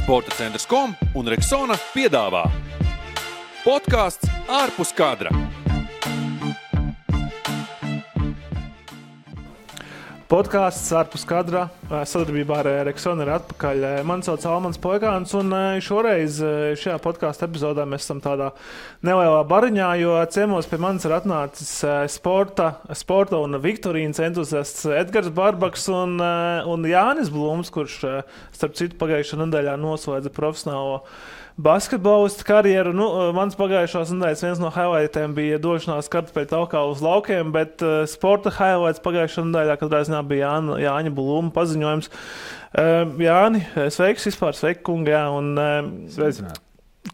Sportacentrs.com un Rexona piedāvā podcasts ārpus kadra. Podcasts ārpus kadra sadarbībā ar Rexona ir atpakaļ. Mani sauc Almans Poigāns, un šoreiz šajā podkāstu epizodē mēs esam tādā nelielā bariņā, jo ciemos pie manis ir atnācis sporta un viktorīnas entuziasts Edgars Barbaks un Jānis Blūms, kurš starp citu pagājušā nedēļā noslēdza profesionālo basketbolistu karjeru. Mans pagājušās nedēļas viens no highlightiem bija došanās kartupeļu taukā uz laukiem, bet sporta highlights pagājušā nedēļā, kad reiz bija Jāņa Blūma paziņojums. Jāni, sveiks vispār, sveiki kungi, jā, un sveicināt.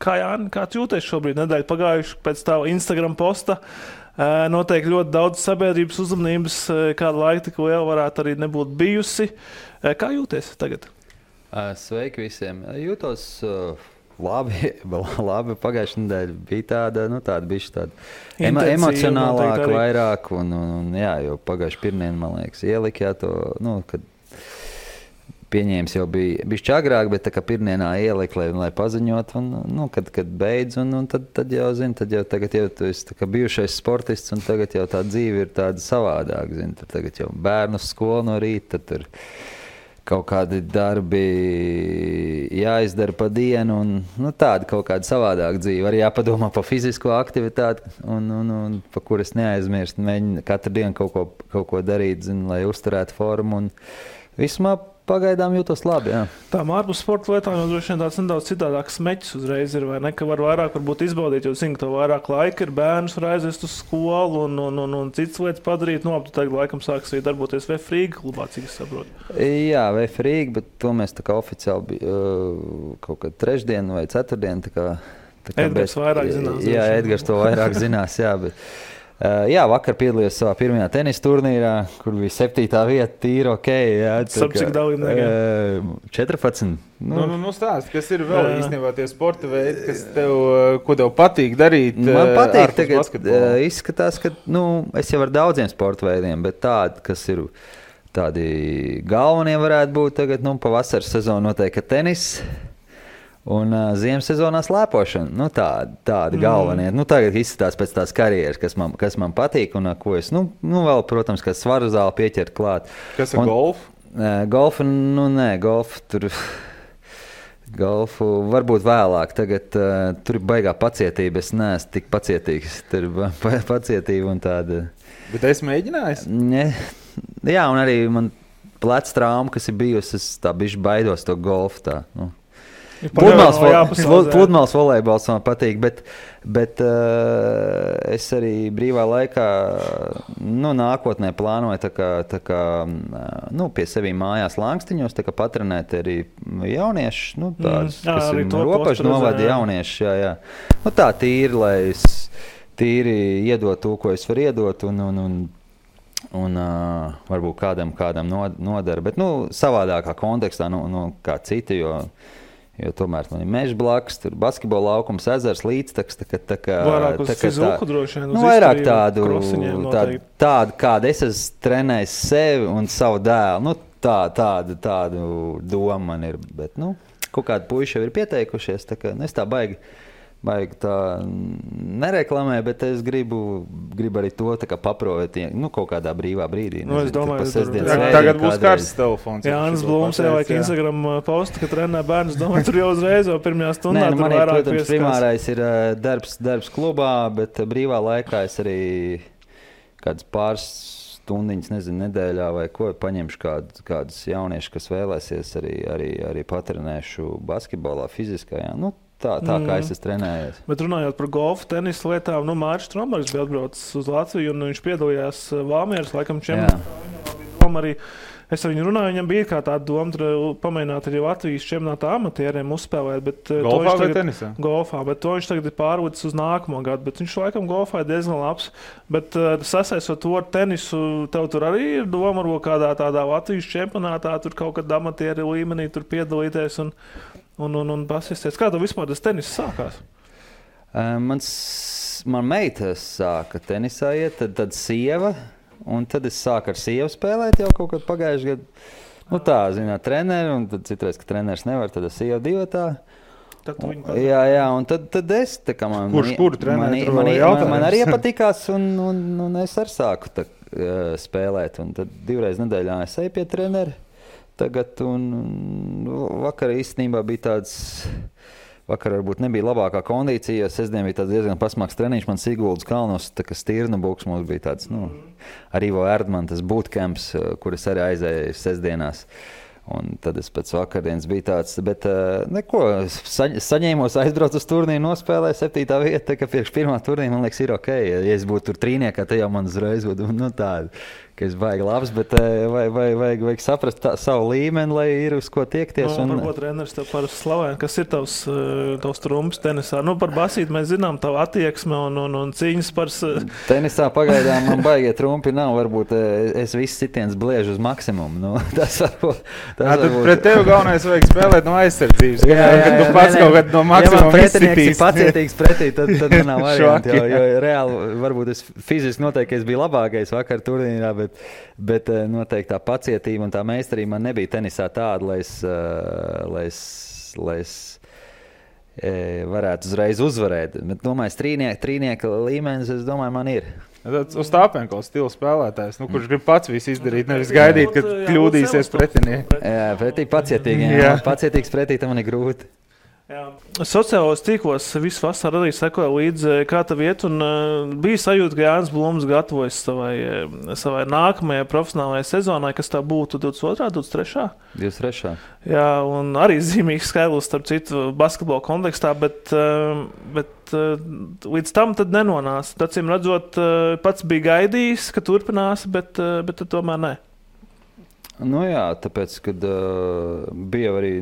Jāni, kā tu jūties šobrīd nedēļu pagājuši pēc tava Instagram posta? Noteikti ļoti daudz sabiedrības uzmanības, kāda laika tik liela varētu arī nebūt bijusi. Kā jūties tagad? Sveiki visiem. Jūtos labi. Pagājušā nedēļa bija tāda bišķi emocionālāka vairāk, un jā, jo pagājuši pirmdien, man liekas, ielika to, kad pieņēmis jau bija bišķi agrāk, bet tā kā pirmdienā ielika, lai paziņot, un kad beidz, un tad jau, tagad jau tu esi tā kā bijušais sportists, un tagad jau tā dzīve ir tāda savādāk, tad tagad jau bērnu skolu no rīta, tad tur kaut kādi darbi jāizdara pa dienu, un tāda kaut kāda savādāka dzīve. Arī jāpadomā par fizisko aktivitāti, un pa kuras neaizmirst. Mēģina katru dienu kaut ko darīt, lai uzturētu formu. Un vismā pagaidām jūtos labi. Jā. Tām ārpus sporta lietām jau droši vien tāds nedaudz citādāks meķis uzreiz ir, vai ne? Ka var vairāk varbūt izbaudīt, jo zinu, ka tev vairāk laika ir, bērnus var aizvest uz skolu un citas lietas padarīt. Tu tagad laikam sāks arī darboties Vefrīga klubā, cik es saprotu. Jā, Vefrīga, bet to mēs tā kā oficiāli kaut kad trešdien vai ceturtdien. Edgars vairāk zinās. Jā, Edgars to vairāk zinās, jā, bet jā, vakar piedalījos savā pirmajā tenisa turnīrā, kur bija 7. vieta, tīri ok. Cik dalībniekiem? 14. Stāst, kas ir vēl īstenībā tie sporta veidi, ko tev patīk darīt? Man patīk tagad, izskatās, ka es jau ar daudziem sporta veidiem, bet tādi, kas ir tādi galvenie varētu būt tagad, pavasaras sezonu noteikti tenis. Un ziemas sezonā slēpošana, tādi galvenie. Tagad izskatās pēc tās karjeras, kas man patīk un ko es, vēl, protams, ka svaru zāli pieķert klāt. Kas ir golf? Golfu, golfu varbūt vēlāk. Tagad tur ir baigā pacietība, es neesmu tik pacietīgs. Tur ir pacietība un tāda. Bet esi mēģinājis? Jā, un arī man pleca trauma, kas ir bijusi, es tā bišķi baidos to golfu tā, Pludmales volejbols man patīk, bet es arī brīvā laikā nākotnē plānoju tā kā pie sevi mājās Langstiņos patrenēt arī jauniešus, kas ir robežu novada jaunieši. Jā. Tā tīri, lai es tīri iedot to, ko es varu iedot un varbūt kādam nodara, bet savādākā kontekstā kā citi, jo tomēr man ir meža blakus, tur basketbola laukums, ezers, līdztaks. Vairāk uz fiziku droši vien, uz vairāk izturību, tādu, kādu es esmu trenējis sevi un savu dēlu. Tādu domu man ir, bet kaut kādi puiši jau ir pieteikušies, es tā baigi tā nereklamē, bet es gribu arī to paprovēt kaut kādā brīvā brīdī. Es domāju, tagad būs karsts telefons. Jānis Blūms ieliek Instagram postu, ka trenē bērnus. Domāju, tur jau uzreiz jau pirmajā stundā tur man vairāk protams, pieskās. Primārais ir darbs klubā, bet brīvā laikā es arī kādas pāris stundiņas, nedēļā vai ko, paņemšu kādus jauniešus, kas vēlēsies arī patrenēšu basketbolā, fiziskajā. Tā kā es esmu trenējies. Bet runājot par golfu, tenisa lietām, Mārcis Strombergs bija atbraucis uz Latviju un viņš piedalījās Valmieras laikam čempionātā. Arī es ar viņu runāju, viņam bija kā tāda doma pamēģināt arī Latvijas čempionāta amatieriem uzspēlēt. Bet, golfā vai tenisā? Golfā, bet to viņš tagad ir pārlicis uz nākamo gadu. Bet viņš laikam golfā ir diezgan labs. Bet sasaistot to ar tenisu, tev tur arī ir doma varbūt kādā tādā Latvijas čempionātā, tur kaut kad amatieri līmenī tur piedalīties un pasisties. Kā tev vispār tas tenis sākās? Man meita sāka tenisā iet, tad sieva, un tad es sāku ar sievu spēlēt jau kaut kad pagājušajā gadā. Nu tā, zināt, treneri, un tad citreiz, ka treneris nevar, tad es jau divatā. Jā, un tad es tā kā Kuru treneri tur vēl jautājums? Man arī patikās, un es arī sāku spēlēt, un tad 2 reizes nedēļā es eju pie treneri tagad, un vakar īstenībā bija tāds, vakar varbūt nebija labākā kondīcija, jo sestdien bija tāds diezgan pasmāks treniņš, man Siguldas kalnos, tā kā Stirnabuks mums bija tāds, ar Ivo Erdmanu tas bootcamps, kur es arī aizēju sestdienās. Un tad es pēc vakardienas biju tāds, bet neko, saņēmos, aizbraucu uz turnīru, nospēlēju 7. vieta, ka priekš 1. turnīra, man liekas, ir ok. Ja es būtu tur trīniekā, tad jau man uzreiz būtu, tāda, ka es baigi labs, bet vajag saprast savu līmeni, lai ir uz ko tiekties. Varbūt treneris tev parasti slavē, kas ir tavs trumps tenisā? Par basīti mēs zinām tavu attieksmi un cīņas par... Tenisā pagaidām man baigie trumpi nav, varbūt es viss sitiens bliežu uz maksimumu. Tas varbūt... Pret tevi galvenais vajag spēlēt no aizsardzības, kad tu pats kaut kad no maksimuma izsitīs. Ja pacietīgs pretī, tad nav varianti, jo reāli varbūt es fiziski noteikti es biju labākais vakar turnīrā, bet noteikti tā pacietība un tā meistarība man nebija tenisā tāda, lai es varētu uzreiz uzvarēt. Bet, domāju, trīnieka līmenis, es domāju, man ir. Uz Tāpenko stila spēlētājs, kurš grib pats visu izdarīt, nevis gaidīt, kad kļūdīsies pretinieki. Jā, pretī pacietīgiem. Pacietīgs pretī, tam man ir grūti. Sociālos tīklos visu vasaru arī sekoja līdzi, kā tev iet, un bija sajūta, ka Jānis Blums gatavojas savai nākamajai profesionālajai sezonai, kas tā būtu 22. 23. 23. Jā, un arī zīmīgs skaidrs, starp citu, basketbola kontekstā, bet līdz tam tad nenonāca. Acīm redzot, pats bija gaidījis, ka turpinās, bet tomēr ne. Nu jā, tāpēc, kad bija arī,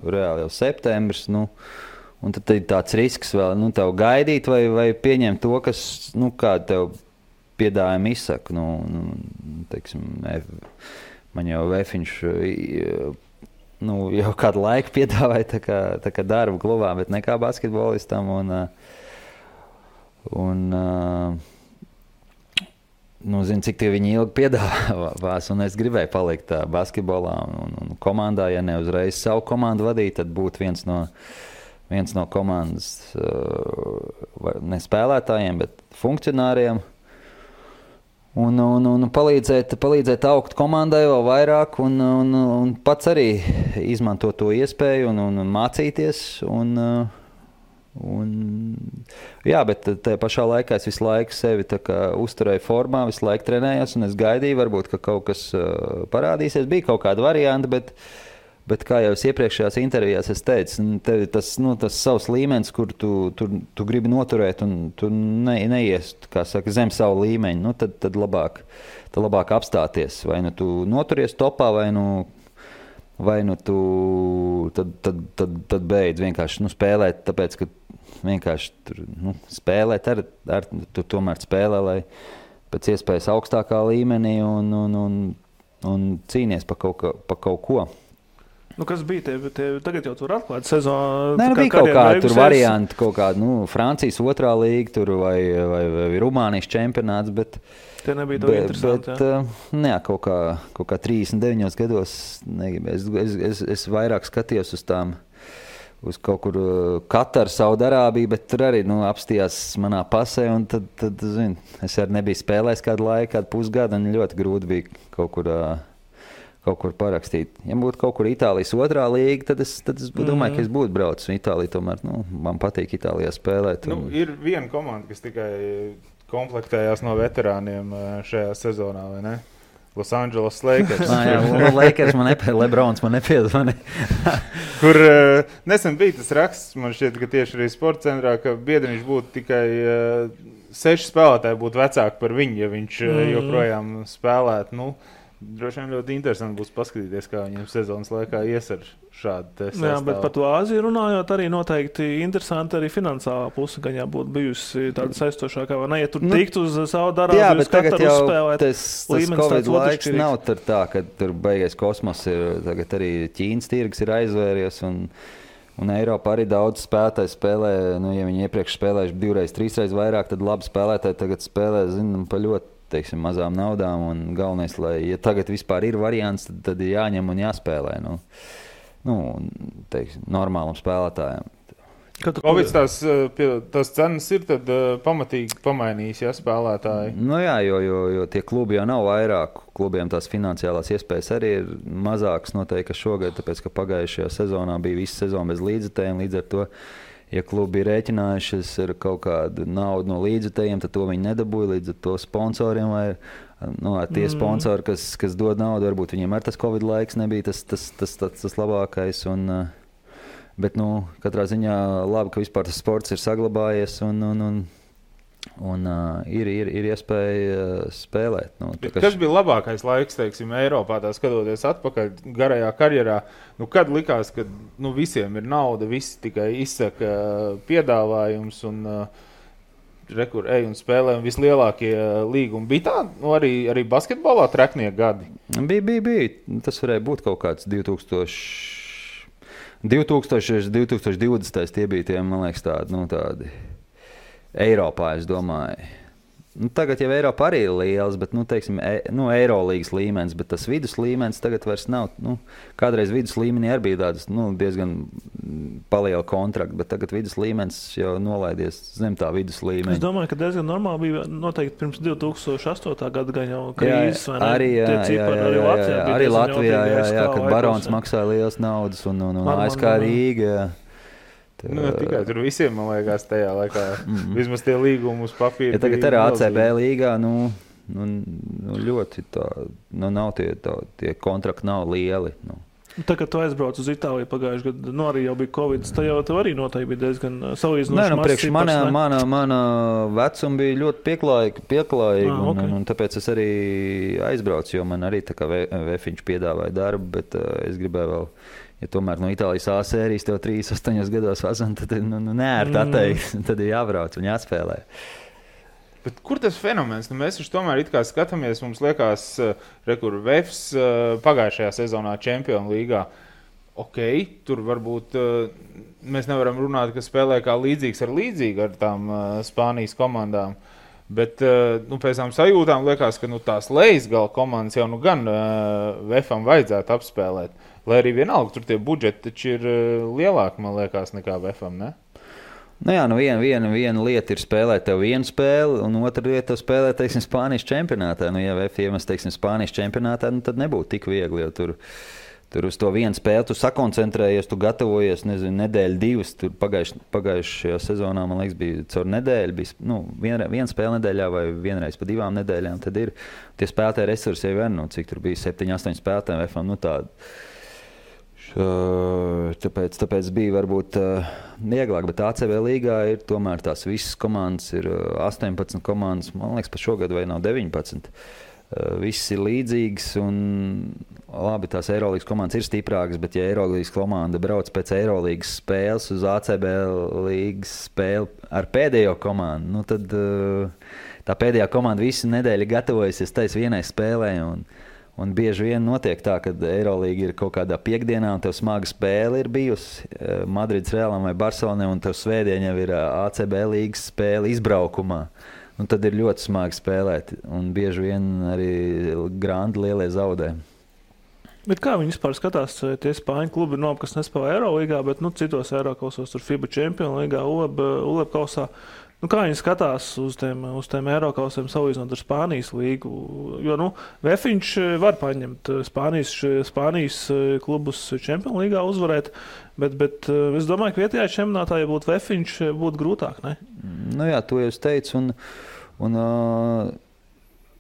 reāli jau septembris, un tad ir tāds risks vēl, tev gaidīt vai pieņemt to, kas, kā tev piedāvājumi izsaka. Teiksim, man jau Vefiņš, jau kādu laiku piedāvāja tā kā darbu klubā, bet nekā basketbolistam, zinu, cik tie viņi ilgi piedāvās, un es gribēju palikt basketbolā un komandā, ja ne uzreiz savu komandu vadīt, tad būtu viens no komandas ne spēlētājiem, bet funkcionāriem, un palīdzēt augt komandai vēl vairāk, un pats arī izmantot to iespēju un mācīties, jā, bet tajā pašā laikā es visu laiku sevi uzturēju formā, visu laiku trenējos, un es gaidīju, varbūt, ka kaut kas parādīsies. Bija kaut kāda varianta, bet kā jau es iepriekšējās intervijās es teicu, tev tas savs līmenis, kur tu gribi noturēt, un tu neies, kā saka, zem savu līmeņu, tad labāk apstāties. Vai tu noturies topā, vai tu tad beidz vienkārši spēlēt, tāpēc, ka vienkārši tur spēlēt, tu tomēr spēlē, lai pēc iespējas augstākā līmenī un cīnies pa kaut ko. Kas bija tagad jau tur atklāt sezonu? Bija kaut kāda tur varianti, kaut kāda, Francijas 2. līga tur vai Rumānijas čempionāts, bet tie nebija to interesanti, jā? Kaut kā 39 gados es vairāk skatījos uz kaut kur Kataru, Saudarābiju, bet tur arī apstījās manā pasē, un tad zini, es arī nebiju spēlējis kādu laiku, kādu pusgadu, un ļoti grūti bija kaut kur parakstīt. Ja būtu kaut kur Itālijas 2. līga, tad es domāju, ka es būtu braucis. Itālija tomēr, man patīk Itālijā spēlēt. Ir viena komanda, kas tikai komplektējās no veterāniem šajā sezonā, vai ne? Los Angeles Lakers. Lakers man nepiedod, Lebrons man nepiedod. Kur nesen bija tas raksts, man šķiet, ka tieši arī sporta centrā, ka Biedriņš būtu tikai 6 spēlētāji būtu vecāki par viņu, ja viņš joprojām spēlētu. Droši vien ļoti interesanti būs paskatīties, kā viņam sezonas laikā ies ar šādu sastāvu. Jā, bet par to Āziju runājot, arī noteikti interesanti arī finansālā puse, gan jābūt bijusi tāda saistošākā, vai ne? Ja tur tiktu uz savu darbu, uz Kataru uzspēlēt, tas Covid laiks nav tur tā, ka tur beigais kosmos ir, tagad arī Ķīnas tirgus ir aizvēries, un Eiropā arī daudz spēlētāji spēlē, ja viņi iepriekš spēlējuši 2, 3 vairāk, tad labi spēlētāji tagad spēlē, pa ļoti teiksim, mazām naudām, un galvenais, lai, ja tagad vispār ir variants, tad ir jāņem un jāspēlē, teiksim, normālam spēlētājam. Covid tās cenas ir tad pamatīgi pamainījis, ja spēlētāji? Jā, jo tie klubi jau nav vairāk. Klubiem tās finansiālās iespējas arī ir mazākas noteikti šogad, tāpēc, ka pagājušajā sezonā bija visa sezona bez līdzekļiem. Līdz ar to, ja klubi ir rēķinājušies ar kaut kādu naudu no līdzekļiem, tad to viņi nedabūja. Līdz ar to sponsoriem vai tie sponsori, kas dod naudu, varbūt viņiem ar tas Covid laiks nebija tas labākais. Bet, katrā ziņā labi, ka vispār tas sports ir saglabājies un ir iespēja spēlēt. Kas bija labākais laiks, teiksim, Eiropā, tā skatoties atpakaļ garajā karjerā? Kad likās, ka visiem ir nauda, visi tikai izsaka piedāvājums un rekur ej un spēlē un vislielākie līgumi? Bija tā, arī basketbolā treknie gadi? Bija. Tas varēja būt kaut kāds 2020. Tie bija tie, man liekas, tādi Eiropā, es domāju. Tagad jau Eiropa arī ir liels, bet, teiksim, Eirolīgas līmenis, bet tas vidus līmenis tagad vairs nav. Kādreiz vidus līmenī arī bija tādas, diezgan paliela kontrakta, bet tagad vidus līmenis jau nolaidies zem tā vidus līmeņa. Es domāju, ka diezgan normāli bija noteikti pirms 2008. gada gan jau krīzes, vai ne? Arī Latvijā, kad Barons maksāja lielas naudas un ASK Rīga, tikai tur visiem, man liekas, tajā laikā vismaz tie līgumi uz papīra. Ja tagad arī ACB līgā, ļoti tā, nav tie kontrakti nav lieli. Tagad tu aizbrauc uz Itāliju pagājuši gadu, arī jau bija Covid, tad jau tev arī noteikti bija diezgan salīdzinoši mazs cipars. Mana vecuma bija ļoti pieklājīga, un tāpēc es arī aizbraucu, jo man arī tā kā Vefiņš piedāvāja darbu, bet es gribēju vēl, ja tomēr no Itālijas A sērijas tev 3-8 gados vazan, tad neērti atteikt, tad ir jābrauc un jāspēlē. Bet kur tas fenomens? Mēs tomēr it kā skatāmies, mums liekas, Vefs pagājušajā sezonā Čempionu līgā. Tur varbūt mēs nevaram runāt, ka spēlē kā līdzīgs ar tām Spānijas komandām. Bet pēc tām sajūtām liekas, ka tās Leisgala komandas jau gan Vefam vajadzētu apspēlēt. Lai arī vienalga, tur tie budžeti taču ir lielāki, man liekas, nekā Vefam, ne? Viena lieta ir spēlēt tev vienu spēli, un otra lieta tev spēlēt, teiksim, Spānijas čempionātā. Ja Vef iemest, teiksim, Spānijas čempionātā, tad nebūtu tik viegli, jo tur uz to vienu spēli tu sakoncentrējies, tu gatavojies, nedēļu, divas. Tur pagājušajā sezonā, man liekas, bija caur nedēļu, bija viena spēle nedēļā vai vienreiz pa 2 nedēļām, tad ir tie spēlētāji resursi jau vien, cik tur bija 7-8 spēlētāji Vefam, tādi. Tāpēc bija varbūt vieglāk, bet ACB līgā ir tomēr tās visas komandas, ir 18 komandas, man liekas, pa šogad vai nav 19. Viss ir līdzīgs un labi, tās Eirolīgas komandas ir stiprākas, bet ja Eirolīgas komanda brauc pēc Eirolīgas spēles uz ACB līgas spēli ar pēdējo komandu, tad tā pēdējā komanda visu nedēļu gatavojusies tais vienai spēlē un bieži vien notiek tā, ka Eirolīga ir kaut kādā piekdienā un tev smaga spēle ir bijusi Madrides Realam vai Barcelonai un tev svētdien jau ir ACB līgas spēle izbraukumā. Un tad ir ļoti smagi spēlēt un bieži vien arī grandi lielie zaudē. Bet kā viņi vispār skatās, tie Spāņu klubi ir kas nespēlē Eirolīgā, bet citos Eirokausos, tur FIBA Čempionu līgā, ULEB kausā. Kā viņi skatās uz tiem Eirokausiem salīdzinot ar Spānijas līgu? Jo Vefiņš var paņemt Spānijas klubus Čempionu līgā uzvarēt, bet es domāju, ka vietējā čempionātā, ja būtu Vefiņš, būtu grūtāk, ne? To jau es teicu, un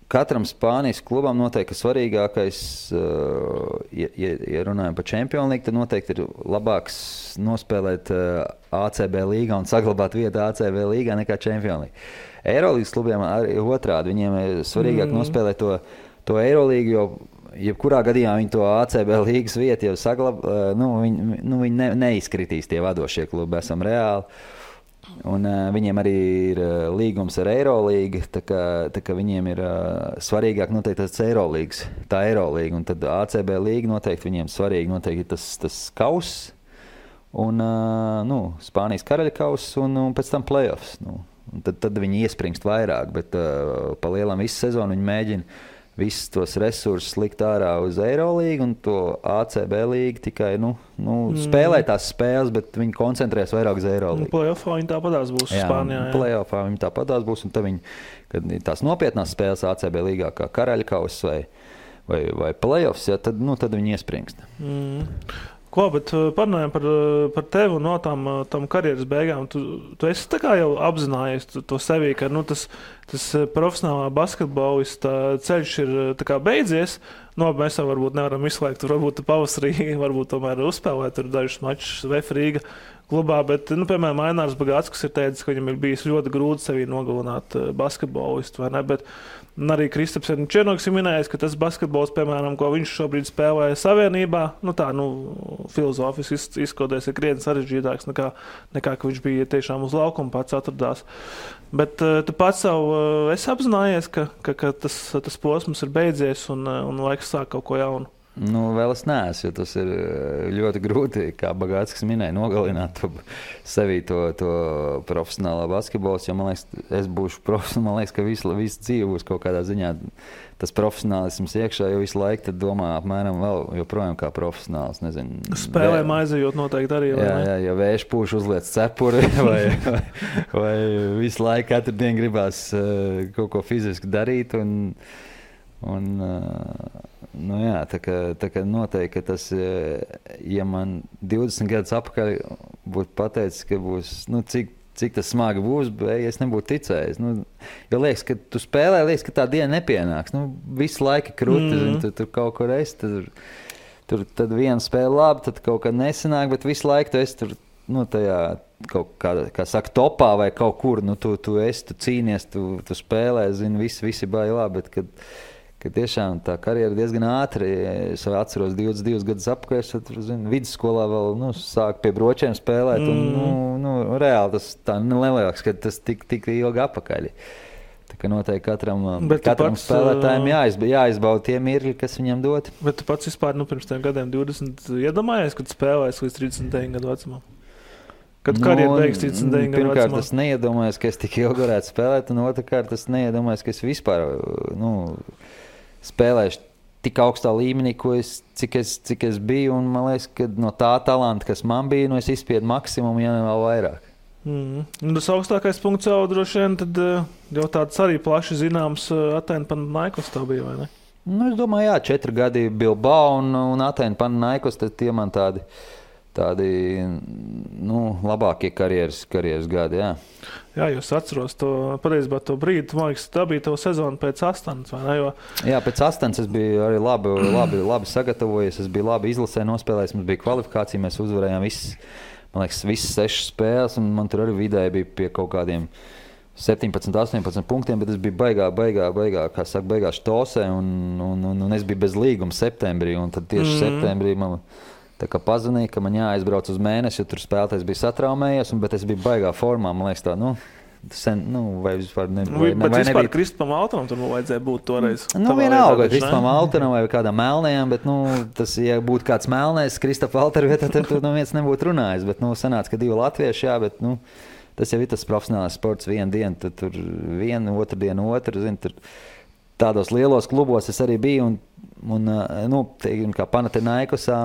katram Spānijas klubam noteikti svarīgākais, ja runājam par Čempionu līgu, tad noteikti ir labāks nospēlēt ACB līgā un saglabāt vietu ACB līgā nekā Čempionu līgu. Eirolīgas klubiem arī otrādi, viņiem ir svarīgāk nospēlēt to Eirolīgu, jo jebkurā gadījumā viņi to ACB līgas vietu jau saglabā, viņi neizkritīs tie vadošie klubi, esam reāli. Un viņiem arī ir līgums ar Eirolīgu, tā kā viņiem ir svarīgāk noteikti tas Eirolīgas, tā Eirolīga, un tad ACB līga noteikti viņiem svarīgi noteikti tas kauss, un Spānijas karaļa kauss, un pēc tam playoffs. tad viņi iespringst vairāk, bet pa lielam visu sezonu viņi mēģina visus tos resursus likt ārā uz Eirolīgu un to ACB līgu tikai, spēlē tās spēles, bet viņi koncentrēs vairāk uz Eirolīgu. Playoffā viņi tāpatās būs Spānijā. Jā, playoffā viņi tāpatās būs, un tad viņi, kad tās nopietnās spēles ACB līgā, kā Karaļkaus vai playoffs, ja, tad viņi iespringst. Ko, bet parunājam par tevi un no tam karjeras beigām. Tu esi tā kā jau apzinājies to sevī, ka tas profesionālā basketbolista ceļš ir tā kā beidzies. Mēs jau varbūt nevaram izslēgt, varbūt pavasarī, varbūt tomēr uzspēlēt tur dažus mačus VF Rīga klubā, bet, piemēram, Ainārs Bagātskis ir teicis, ka viņam ir bijis ļoti grūti sevī nogalināt basketbolistu, vai ne, bet arī Kristaps Černoks ir minējis, ka tas basketbols, piemēram, ko viņš šobrīd spēlē Savienībā, filozofiski izkoties ir krietni sarežģītāks nekā, ka viņš bija tiešām uz laukuma pats atradās. Bet tu pats esi apzinājies, ka tas posms ir beidzies un laiks sāk kaut ko jaunu. Vēl es neesmu, jo tas ir ļoti grūti, kā Bagātskis minēja, nogalināt sevī to profesionālā basketbols, jo, man liekas, es būšu profesionāls, man liekas, ka visu dzīvi būs kaut kādā ziņā tas profesionālisms iekšā, jo visu laiku tad domā apmēram vēl joprojām kā profesionāls, nezinu. Spēlēm aizejot noteikti arī, vai ne? Jā, ja vējš pūš uzliec cepuri vai visu laiku katru dienu gribās kaut ko fiziski darīt tā kā noteikti, ka tas, ja man 20 gadus apakaļ būtu pateicis, ka būs, cik tas smagi būs, bet es nebūtu ticējis. Jo liekas, ka tu spēlē, liekas, ka tā diena nepienāks. Visu laiku krūti, tur kaut kur esi, tad viena spēle labi, tad kaut kā nesanāk, bet visu laiku tu esi tur, tajā kaut kā saka, topā vai kaut kur, tu esi, tu cīnies, tu spēlē, visi bailā, bet kad tiešām tā karjera diezgan ātri. Es atceros 22 gadus apkārt, vidusskolā vēl sāku pie bročiem spēlēt. Reāli tas tā neliekas, ka tas tik ilgi apakaļ. Tā kā noteikti katram spēlētājiem jāizbauda tie mirkļi, kas viņam dot. Bet tu pats vispār pirms tiem gadiem 20 iedomājies, kad spēlēs līdz 39 gadu vecumam? Kad karjeru beigs 39 gadu vecumā? Pirmkārt, es neiedomājos, ka es tik ilgi varētu spēlēt, un otrkārt, es neiedomājos, ka es vispār spēlēšu tik augstā līmenī, cik es biju, un man liekas, ka no tā talanta, kas man bija, es izspiedu maksimumu, ja ne vēl vairāk. Tas augstākais punkts jau droši vien, tad jau tāds arī plaši zināms Atēnu Panathinaikos tā bija, vai ne? Es domāju, jā, 4 gadi Bilbao un Atēnu Panathinaikos, tad tie man tādi labākie karjeras gadi, jā. Jā, jūs atceros pareizībā to brīdi, man liekas, tā bija tava sezona pēc Astanas, vai ne? Jā, pēc Astanas es biju arī labi sagatavojies, es biju labi izlasē nospēlējis, mums bija kvalifikācija, mēs uzvarējām visas 6 spēles, un man tur arī vidēji bija pie kaut kādiem 17, 18 punktiem, bet es biju baigā štosē, un es biju bez līguma septembrī, un tad tieši septembrī man tā kā pazvanīja, ka man jāaizbrauc uz mēnesi, jo tur spēlētājs bija satraumējies, bet es biju baigā formā, man liekas tā, vai vispār nebija. Bet vispār Kristupam Altanam tur vajadzēja būt toreiz. Vienalga, Kristupam Altanam vai kādam melnējam, bet, tas, ja būtu kāds melnējs Kristupa Altara vietā, tad tur viens nebūtu runājis, bet, sanāca, ka 2 latvieši, jā, bet, tas jau ir tas profesionāls sports, vienu dienu, tad tur vienu, otru dienu, tur tādos lielos klubos es arī biju, teiksim, kā Panathinaikosā,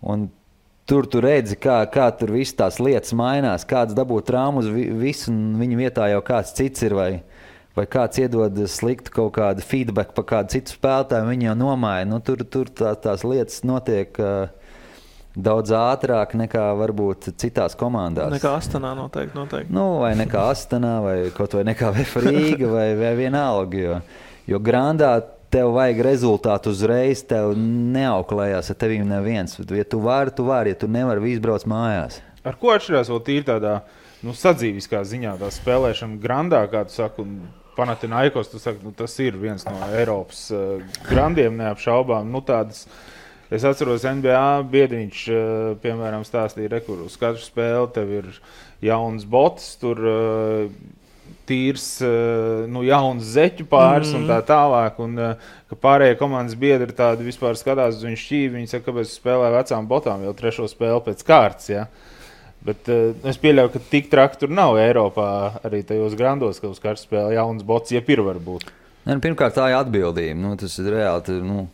un tur tu redzi, kā tur viss tās lietas mainās, kāds dabū traumas, visu, un viņa vietā jau kāds cits ir, vai kāds iedod sliktu kaut kādu feedback par kādu citu spēlētāju, viņi jau nomāja. Tur tās lietas notiek daudz ātrāk nekā varbūt citās komandās. Nekā Astanā noteikti. Vai nekā Astanā, vai kaut vai nekā VF Rīga, vai vienalga, jo Grandā tev vajag rezultātu uzreiz, tev neauklējās ar tevīm neviens. Ja tu vari, ja tu nevari, viss brauc mājās. Ar ko atšķirās vēl tīri tādā sadzīviskā ziņā, tā spēlēšana Grandā, kā tu saki, un Panathinaikos, tu saki, tas ir viens no Eiropas grandiem neapšaubām. Tādas, es atceros NBA biedriņš, piemēram, stāstīja, kur uz katru spēli tev ir jauns bots, tur tīrs, jauns zeķu pāris un tā tālāk, un ka pārējie komandas biedri tādi vispār skatās uz viņu šķīvi, viņi saka, kāpēc spēlē vecām botām jau 3. spēli pēc kārtas, ja? Bet es pieļauju, ka tik traki tur nav Eiropā, arī tajos grandos, ka uz karstu spēle jauns bots, varbūt. Pirmkārt, tā ir atbildība. Tas ir reāli.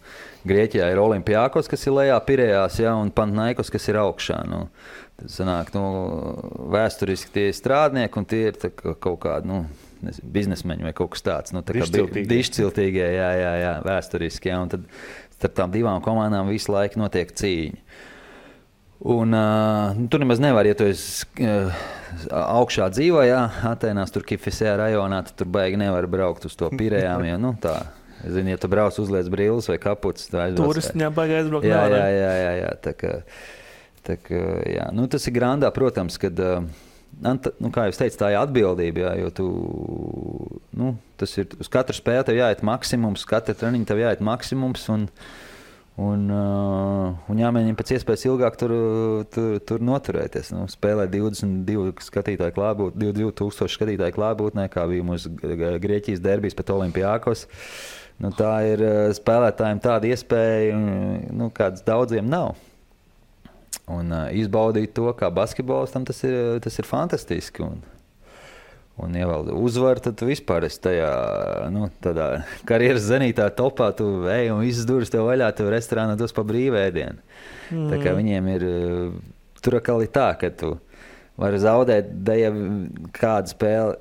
Grieķijā ir Olimpiakos, kas ir lejā Pirejās, un Panathinaikos, kas ir augšā. Tas sanāk, vēsturiski tie ir strādnieki, un tie ir kaut kādi biznesmeņi vai kaut kas tāds. Dišciltīgie, jā, vēsturiski. Un tad starp tām divām komandām visu laiku notiek cīņa. Un, tur nemaz nevar, ja tu esi augšā dzīvo, Atēnās, tur Kifisē rajonā, tad tur baigi nevar braukt uz to Pirejām, jo, tā, ja tu brauc uzliec brilles vai kaputs, tā aizbrauc. Turistiņā baigi aizbraukt. Jā, tā kā, jā. Tas ir grandā, protams, kad, kā jau teicu, tā ir atbildība, jo tu, tas ir, uz katru spēli tev jāiet maksimums, katru treniņu tev jāiet maksimums, un jāmēģina pēc iespējas ilgāk tur noturēties. Spēlē 22 skatītāju klātbūtnē, 22,000 skatītāju klātbūtnē, kā bija mūsu Grieķijas derbijs pret Olimpiakos. Tā ir spēlētājiem tāda iespēja, kādas daudziem nav. Un izbaudīt to, kā basketbolistam, tas ir fantastiski. Un ja vēl uzvar, tad tu vispār esi tajā, tādā karjeras zenītā topā, tu ej un visas durvis tev vaļā, tev restorānā dos pa brīvēdienu. Tā kā viņiem ir, tur atkal ir tā, ka tu vari zaudēt, ja kādu spēli,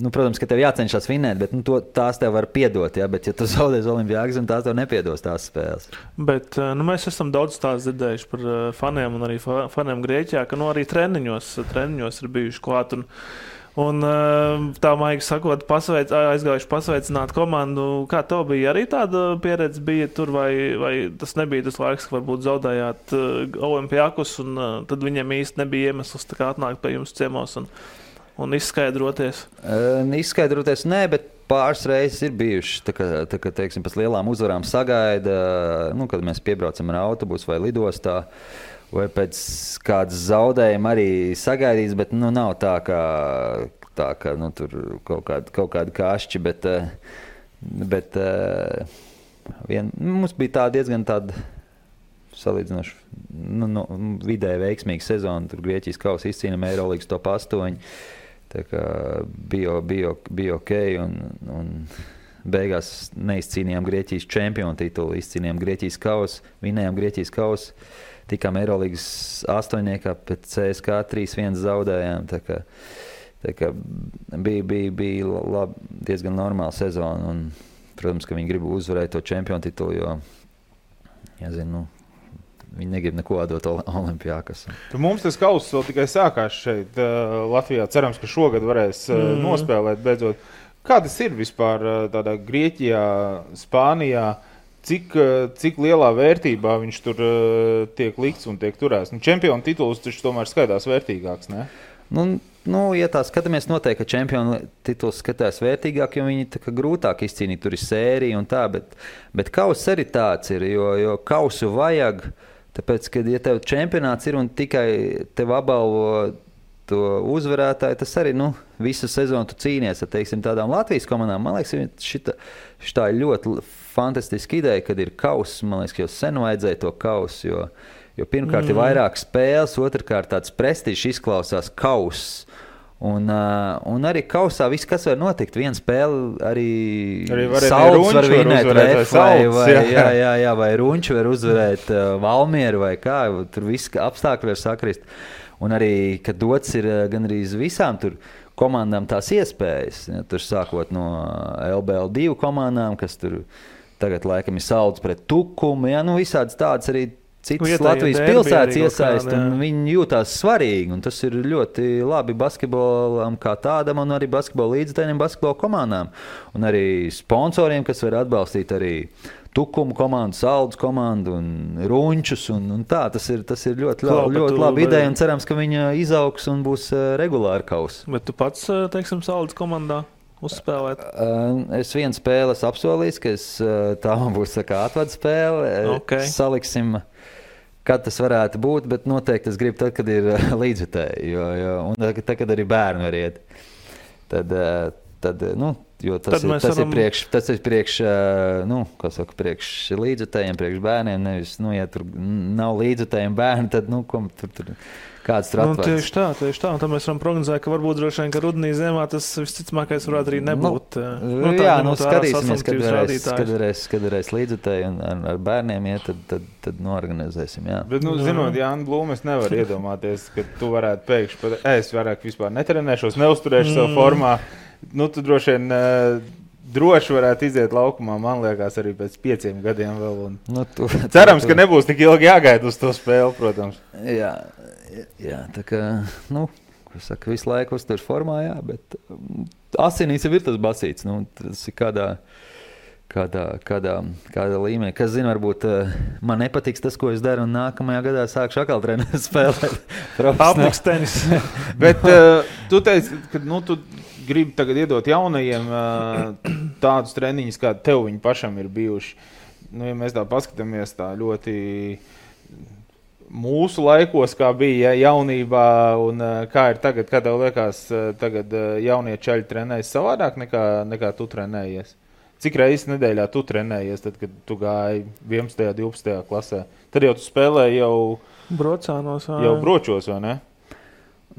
protams, ka tev jācenšas vinēt, bet tās tev var piedot, bet ja tu zaudēs Olimpiakos, tās tev nepiedos tās spēles. Bet mēs esam daudz stāstu dzirdējuši par faniem un arī faniem Grieķijā, ka arī treniņos ir bijuši klāt un tā maigi sakot, aizgājuši pasveicināt komandu. Kā tev bija arī tāda pieredze bija tur, vai tas nebija tas laiks, ka varbūt zaudējāt Olimpiakos, un tad viņiem īsti nebija iemesls tā kā atnākt pie jums ciemos un izskaidroties? Izskaidroties nē, bet pāris reizes ir bijuši, tā kā teiksim, pēc lielām uzvarām sagaida, kad mēs piebraucam ar autobusu vai lidostā, vai pēc kādas zaudējuma arī sagaidīs, bet nav tā kā tur kaut kādi kašķi, bet mums bija tā diezgan tāda salīdzinoši vidēji veiksmīga sezona. Tur Grieķijas kausa izcīnām Eirolīgas top 8. Tā kā bija ok, un beigās neizcīnījām Grieķijas čempionu titulu, izcīnījām Grieķijas kausu, vinējām Grieķijas kausu. Tikām Eirolīgas 8. pēc CSKA 3-1 zaudējām. Tā kā bija diezgan normāla sezona. Un, protams, ka viņi grib uzvarēt to čempionu titulu, jo, viņi negrib neko dot Olimpiakos. Mums tas kauss vēl tikai sākās šeit Latvijā. Cerams, ka šogad varēs nospēlēt beidzot. Kā tas ir vispār tādā Grieķijā, Spānijā? Cik lielā vērtībā viņš tur tiek likts un tiek turēts? Čempionu tituls taču tomēr skaitās vērtīgāks, ne? Ja tā skatāmies, noteikti, ka čempionu tituls skatās vērtīgāk, jo viņi tā kā grūtāk izcīnīt, tur ir sērija un tā, bet kauss arī tāds ir, jo kausu vajag, tāpēc, ka ja tev čempionāts ir un tikai tev apbalvo to uzvarētāju, tas arī, visu sezonu tu cīnies ar, teiksim, tādām Latvijas komandām. Man liekas, šitā ir ļoti fantastiska ideja, kad ir kauss. Man liekas, ka jau sen vajadzēja to kausu, jo pirmkārt ir vairāk spēles, otrkārt tāds prestižs izklausās kauss. Un arī kausā viss, kas var notikt, viena spēle arī Salds var vinēt, vai Runči var uzvarēt Valmieru vai kā, tur viss apstākļi var sakrist. Un arī, kad dots ir gan arī visām tur komandām tās iespējas, tur sākot no LBL2 komandām, kas tur tagad laikam ir Salds pret Tukumu, visādas tādas arī citas Latvijas pilsētas iesaist, un viņi jūtās svarīgi, un tas ir ļoti labi basketbolam kā tādam, un arī basketbola līdzekļiem, basketbola komandām, un arī sponsoriem, kas var atbalstīt arī Tukumu komandu, Saldus komandu un Runčus, un tā, tas ir ļoti labi ideja, un cerams, ka viņa izaugs un būs regulāri kauss. Bet tu pats, teiksim, Saldus komandā uzspēlēt? Es vienu spēli esmu apsolījis, ka tā man būs atvada spēle. Okay. Saliksim, kad tas varētu būt, bet noteikti es gribu tad, kad ir līdzvitēji, un tad, kad arī bērni var iet. Tad Jo tas ir priekš līdzjutējiem, priekš bērniem. Nevis, ja tur nav līdzjutējiem bērni, tad, tur kāds tur atvērs. Tieši tā. Un tad mēs varam prognozēt, ka varbūt droši vien, ka rudenī ziemā tas visticamākais varētu arī nebūt. Skatīsimies, kad varēs līdzjutēji un ar bērniem iet, tad norganizēsim, jā. Bet, zinot Jānu Blūmu, es nevaru iedomāties, ka tu varētu pēkšņi, es vairāk vispār netrenēšos, neuzturēšu savu formā. Tu droši vien droši varētu iziet laukumā, man liekas, arī pēc 5 gadiem vēl. Cerams, ka nebūs tik ilgi jāgaida uz to spēli, protams. Jā, tā kā, visu laiku uztur formā, jā, bet asinīs jau ir tas basīts, tas ir kādā līmenī. Kas zina, varbūt man nepatiks tas, ko es daru, un nākamajā gadā sākšu atkal treneru spēlēt. Apliks tenis. Bet tu teici, ka tu gribi tagad iedot jaunajiem tādus treniņus, kādi tev viņi pašam ir bijuši. Ja mēs tā paskatāmies tā ļoti mūsu laikos, kā bija jaunībā un kā ir tagad, kā tev liekas, tagad jaunie čaļi trenējas savādāk nekā tu trenējies? Cik reizes nedēļā tu trenējies, tad, kad tu gāji 11. 12. klasē? Tad jau tu spēlēji jau bročos, vai ne?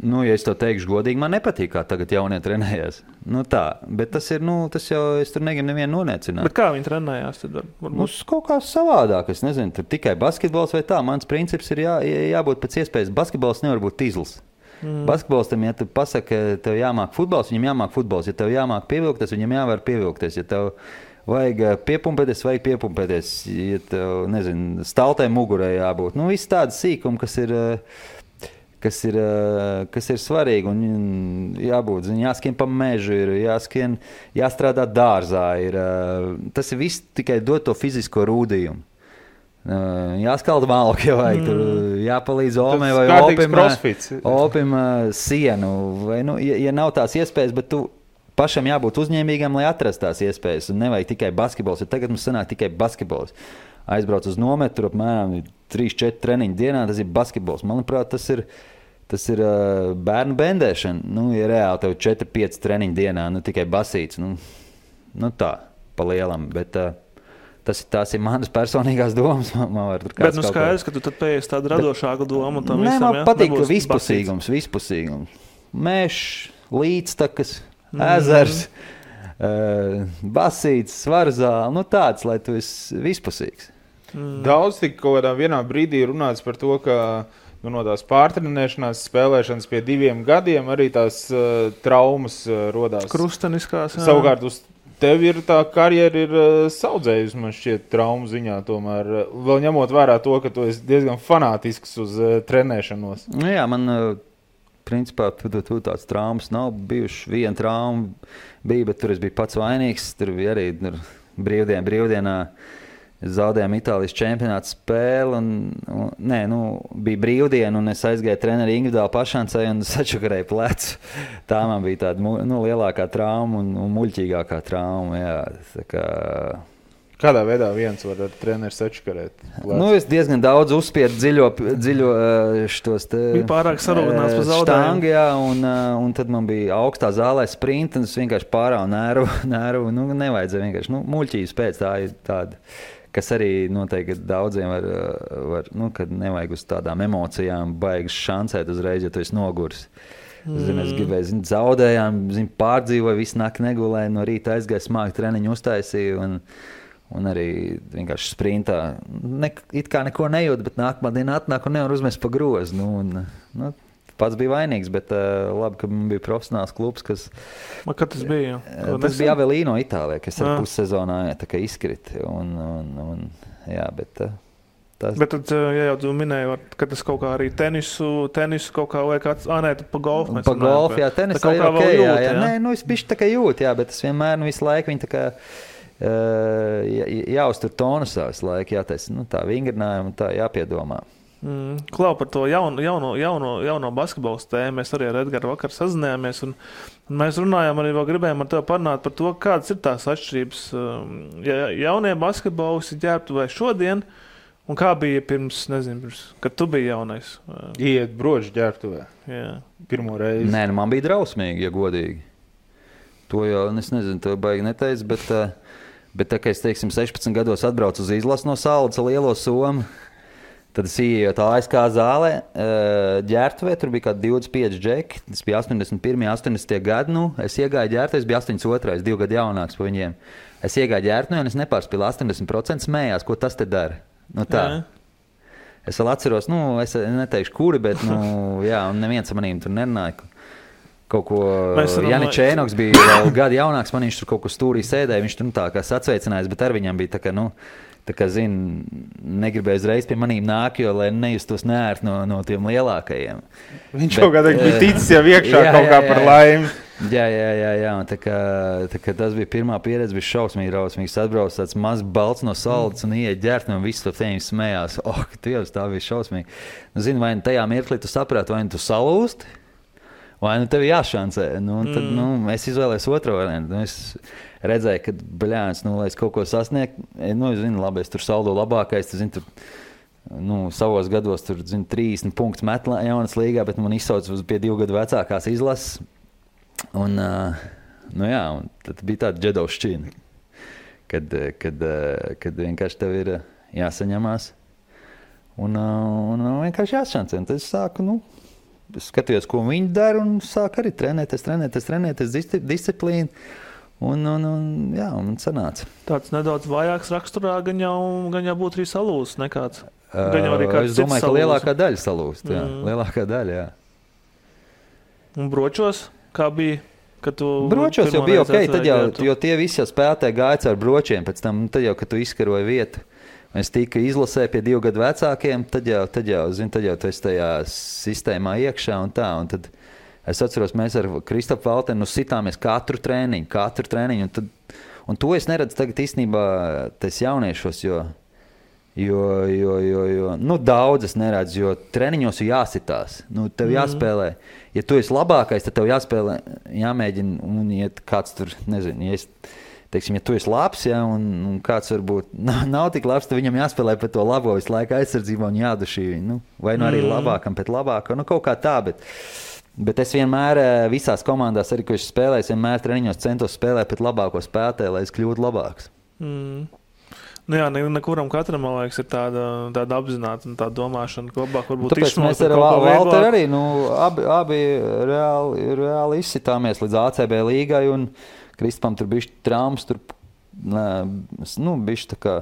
Ja es to teikšu godīgi, man nepatīk, kā tagad jaunie trenējās. Bet tas ir, tas jau, es tur negribu nevienu noniecināt. Bet kā viņi trenējās tad? Kaut kā savādāk, es nezinu, tur tikai basketbols vai tā. Mans princips ir jābūt pēc iespējas. Basketbols nevar būt tīzls. Basketbolistam, ja tu pasaki, tev jāmāk futbols, viņam jāmāk futbols. Ja tev jāmāk pievilkties, viņam jāvar pievilkties. Ja tev vajag piepumpēties. Ja tev, nezinu, staltē mugurē jābūt. Viss tādas sīkumi, kas ir svarīgi un jābūt, jāskrien pa mežu, jāstrādā dārzā. Tas ir viss tikai dot to fizisko rūdījumu. Jāskalda malku, ja vajag, jāpalīdz Omē vai Opim sienu. Vai, ja nav tās iespējas, bet tu pašam jābūt uzņēmīgam, lai atrast tās iespējas. Un nevajag tikai basketbols, jo tagad mums sanāk tikai basketbols. Aizbrauc uz nometru, apmēram 3-4 treniņu dienā, tas ir basketbols. Manuprāt, tas ir bērnu bendēšana. Ja reāli tev 4-5 treniņu dienā, tikai basīts. Tā, pa lielam. Bet tās ir manas personīgās domas. Bet skaidrs, ka tu tad pēc tādu radošāku domu. Man patīk vispusīgums. Mežs, līdztakas, ezers, basīts, svarzāli. Tāds, lai tu esi vispusīgs. Daudz tik kaut kādā vienā brīdī runāts par to, ka no tās pārtrenēšanās, spēlēšanas pie 2 gadiem arī tās traumas rodās. Krusteniskās. Savukārt uz tevi ir tā karjera ir saudzējusi, man šķiet, traumu ziņā tomēr. Vēl ņemot vērā to, ka tu esi diezgan fanātisks uz trenēšanos. Jā, man principā tāds traumas nav bijuši. Viena trauma bija, bet tur es biju pats vainīgs. Tur bija arī brīvdienā. Zaudējām Itālijas čempionāta spēli. Bija brīvdiena, un es aizgāju treneri individuāli pašancei un sačakarēju plecu. Tā man bija tāda lielākā trauma un muļķīgākā trauma. Jā, Kādā veidā viens var ar treneri sačakarēt plecu? Es diezgan daudz uzspiedu dziļo štos te bija pārāk sarūdināts pa zaudējumu. Jā, un tad man bija augstā zālē sprinta, un es vienkārši pārāvu nervu. Nevajadzēja vienkārši. Muļķības pēc tā ir tāda, kas arī noteikti daudziem var kad nevajag uz tādām emocijām baigas šancēt uzreiz, ja tu esi noguris. Es gribēju, zaudējām, pārdzīvoju, visu nakti negulēju, no rīta aizgāju smāku treniņu uztaisīju un arī vienkārši sprintā. It kā neko nejūt, bet nākamā diena atnāk un nevar uzmest pa grozu. Pats bija vainīgs, bet labi, ka man bija profesionāls klubs, kas... Kad tas bija? Tas bija Avelino Itālijā, kas ar pussezonā izkrita. Bet tad, ja jau tu minēji, ka tas kaut kā arī tenisu kaut kā vai kāds... pa golfu mēs runājam. Pa golfu, jā, tenisā ir ok, jā. Nē, es bišķi tā kā jūt, jā, bet es vienmēr visu laiku viņi tā kā... jāuztur tonusā visu laiku, jātaisa tā vingrinājumu, tā jāpiedomā. Klau par to jauno basketbols tēmu. Mēs arī ar Edgaru vakar sazinājāmies un mēs runājām arī vēl gribējām ar tevi parunāt par to, kādas ir tās atšķirības. Jaunie basketbolisti ģērbtuvē šodien un kā bija pirms, kad tu biji jaunais? Iet broģi ģērbtuvē. Jā. Pirmo reizi. Nē, man bija drausmīgi, ja godīgi. To jau, es nezinu, to baigi neteicu, bet tā, ka es, teiksim, 16 gados atbraucu uz izlasu no Saldas lielo somu, tad es ieju tā ASK zālē, ģērtuvē, tur bija kādi 25 džeki, tas bija 81, 80 gadi, es iegāju ģērtuvē, es biju 82, 2 gadu jaunāks pa viņiem. Es iegāju ģērtuvē un es nepārspīlu 80% smējās, ko tas te dara. Tā. Es vēl atceros, es neteikšu kuri, bet, jā, un neviens manīm tur nerunāja. Kaut ko Janis Čēnoks bija vēl gadu jaunāks, man viņš tur kaut ko stūrī sēdēja, viņš tur tā kā sacveicinājās, bet ar viņam bija tā kā negribēja uzreiz pie manīm nāk, jo, lai nejustos neērt no tiem lielākajiem. Viņš kaut kādā bija ticis jau iekšā kaut kā par laimi. Jā, un tā kā tas bija pirmā pieredze, bija šausmīgi rausmīgs, atbrauc tāds mazs balts no Saldas un ieiet ģērtni un viss to tēņi smējās. Dievs, tā bija šausmīgi. Zini, vai tajā mirklī tu saprāti, vai tu salūsti, vai tev jāšancē. Tad es izvēlējos otro variantu. Es redzēju, ka, bļāns, lai es kaut ko sasniegtu, zinu, labi, es tur saldo labākais, tu zini, savos gados tur, zinu, 30 punktus met jaunas līgā, bet man izsauc pie 2 gadu vecākās izlases. Un tad bija tāda džedovšķina, kad vienkārši tev ir jāsaņemās un vienkārši jāšancē. Tad es sāku, es skatījos, ko viņi dara un sāku arī trenēties disciplīnu. Un sanāca. Tāds nedaudz vājāks raksturā gan jau būtu arī salūsts nekāds. Es domāju, ka lielākā daļa salūst. Lielākā daļa, jā. Un bročos, kā bija? Bročos jau bija ok, tad jo tie visi jau spēlētāji gāja ar bročiem, pēc tam, tad jau, kad tu izkaroji vietu. Es tika izlasē pie 2 gadu vecākiem, tad jau tu esi tajā sistēmā iekšā un tā. Un tad es atceros, mēs ar Kristofu Valtenu sitāmies katru trēniņu. Un to es neredzu tagad īstenībā tais jauniešos, jo daudz es neredzu, jo treniņos ir jāsitās. Tev jāspēlē. Ja tu esi labākais, tad tev jāspēlē, jāmēģina, un ja kāds tur, nezinu, ja tu esi labs, un kāds varbūt nav tik labs, tad viņam jāspēlē pēc to labo visu laiku aizsardzībā un jādušī viņu. Vai arī labākam pēc labāka, kaut kā tā, bet es vienmēr visās komandās, arī, ko es spēlēju, vienmēr treniņos centos spēlēt pēc labāko spēlētāju, lai es kļūtu labāks. Nekuram katram, man liekas, ir tāda apzināta un tāda domāšana, ka labāk varbūt tāpēc mēs ar Valteru arī, abi reāli izsitāmies līdz ACB līgai, un Kristupam tur bišķi traumas, bišķi tā kā,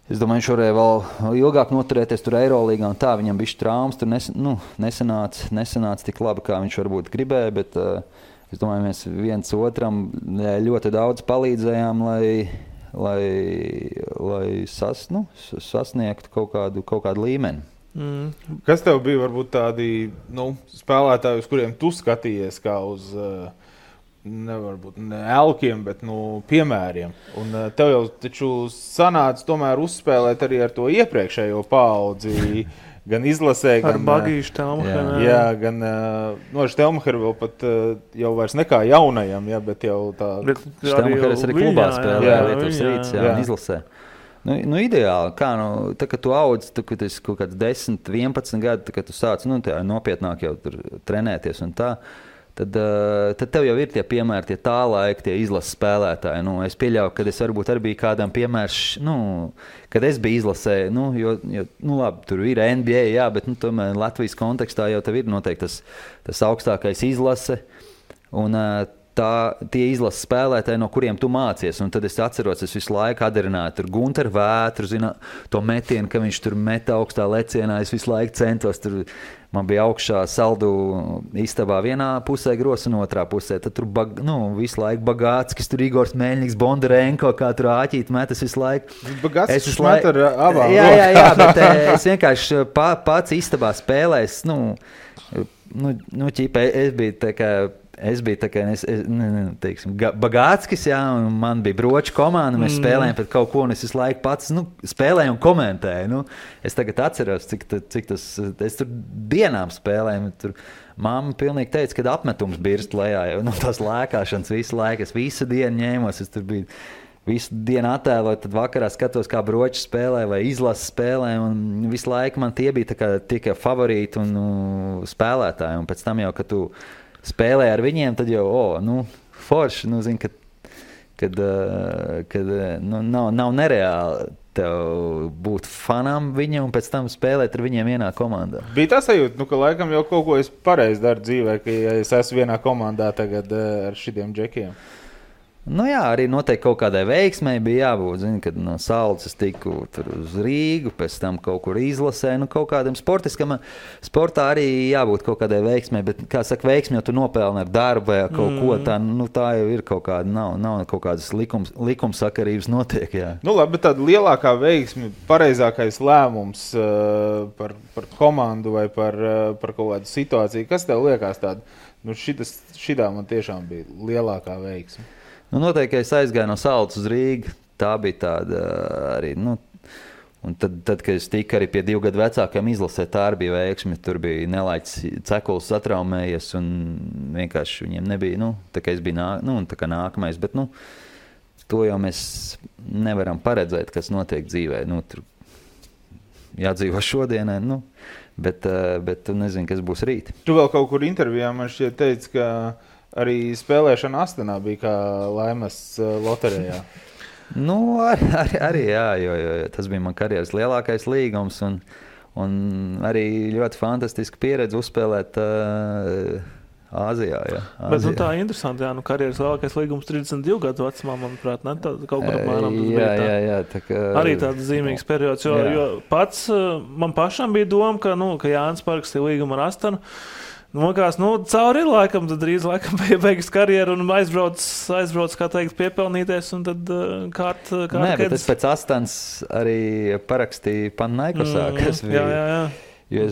es domāju, viņš varēja vēl ilgāk noturēties tur Eirolīgā un tā, viņam bišķi traumas, tur nesanāca tik labi, kā viņš varbūt gribēja, bet es domāju, mēs viens otram ļoti daudz palīdzējām, lai sasniegtu kaut kādu līmeni. Kas tev bija varbūt tādi spēlētāji, uz kuriem tu skatījies kā uz nevarbūt ne elkiem, bet piemēriem? Un tev jau taču sanāca tomēr uzspēlēt arī ar to iepriekšējo paudzi, gan izlasē, ar gan Bagīšu Telmacheru. Jā, gan Telmacheru vēl pat jau vairs nekā jaunajam, bet jau tā. Telmacheris arī klubā spēlē, Lietuvas Rīts, un izlasē. Ideāli, kā, tā, kad tu audz, kad esi kaut kāds 10, 11 gadi, kad tu sāc, nopietnāk jau tur trenēties un tā, tad tev jau ir tie piemēri, tie tā laika, tie izlases spēlētāji. Es pieļauju, kad es varbūt arī biju kādam piemērs, kad es biju izlasē, jo labi, tur ir NBA, jā, bet tomēr Latvijas kontekstā jau tev ir noteikti tas augstākais izlase, un tie izlases spēlētāji, no kuriem tu mācies. Un tad es atceros, es visu laiku adarināju tur Gunteru Vētru, to metienu, ka viņš tur meta augstā lecienā, es visu laiku centos tur. Man bija augšā saldu istabā vienā pusē gros un otrā pusē. Tad tur visu laiku Bagāckis, tur Igors Meļņiks, Bondarenko, kā tur āķīt metas visu laiku. Bagāckis met ar abām. Jā, bet es vienkārši pats istabā spēlēs, ķipa, es biju tā kā, teiksim, Bagāckis, jā, un man bija broču komanda, mēs spēlējām pret kaut ko, un es visu laiku pats, spēlēju un komentēju, es tagad atceros, cik tas, es tur dienām spēlēju, tur mamma pilnīgi teica, kad apmetums birst lejā, jo tās lēkāšanas visu laiku, es visu dienu ņēmos, es tur biju visu dienu attēloju, tad vakarā skatos, kā broči spēlē vai izlases spēlē, un visu laiku man tie bija tā kā tikai favorīti un spēlētāji, un pēc tam jau, kad tu spēlē ar viņiem, tad jau, forši, nu, zini, kad nav nereāli tev būt fanam viņam un pēc tam spēlēt ar viņiem vienā komandā. Bija tā sajūta, ka laikam jau kaut ko es pareizi daru dzīvē, ka ja es esmu vienā komandā tagad ar šitiem džekiem. Nu jā, arī noteikti kaut kādai veiksmei bija jābūt, zini, kad no Saules es tiku tur uz Rīgu, pēc tam kaut kur izlasē, nu kaut kādam sportā arī jābūt kaut kādai veiksmei, bet, kā saka, veiksmi jau tu nopelni ar darbu vai kaut ko tā, nu tā jau ir kaut kāda, nav kaut kādas likumsakarības notiek, jā. Nu labi, bet tāda lielākā veiksmi, pareizākais lēmums par komandu vai par kaut kādu situāciju, kas tev liekas tāda, nu šitā man tiešām bija lielākā veiksmi? Nu, noteikti, es aizgāju no Saules uz Rīgu, tā bija tāda arī, nu, un tad, kad es tiku arī pie 2 gadu vecākiem izlasē, tā arī bija veiksmi, tur bija Nelaiķis Cekuls satraumējies un vienkārši viņiem nebija, nu, tā kā es biju tā kā nākamais, bet, nu, to jau mēs nevaram paredzēt, kas notiek dzīvē, nu, tur jādzīvo šodienai, nu, bet tu nezini, kas būs rīt. Tu vēl kaut kur intervijā man šķiet teici, ka arī spēlēšana Astanā bija kā laimes loterijā. Nu, arī jā, jo tas bija man karjeras lielākais līgums un arī ļoti fantastiska pieredze uzspēlēt Āzijā. Jā, bet nu, tā interesanti, jā, nu karjeras lielākais līgums 32 gadu vecumā, manuprāt, ne? Kaut kur apmēram tas bija tā. Jā, tā kā... Arī tāds zīmīgs periods, jo pats man pašam bija doma, ka Jānis parakstīja līgumu ar Astanu. Nu, cauri ir laikam, tad drīz laikam beigas karjeru un aizbrauc, kā teikt, piepelnīties un tad kārt Nē, bet es pēc Astanas arī parakstīju Panaikosā, kas bija. Jā. Jo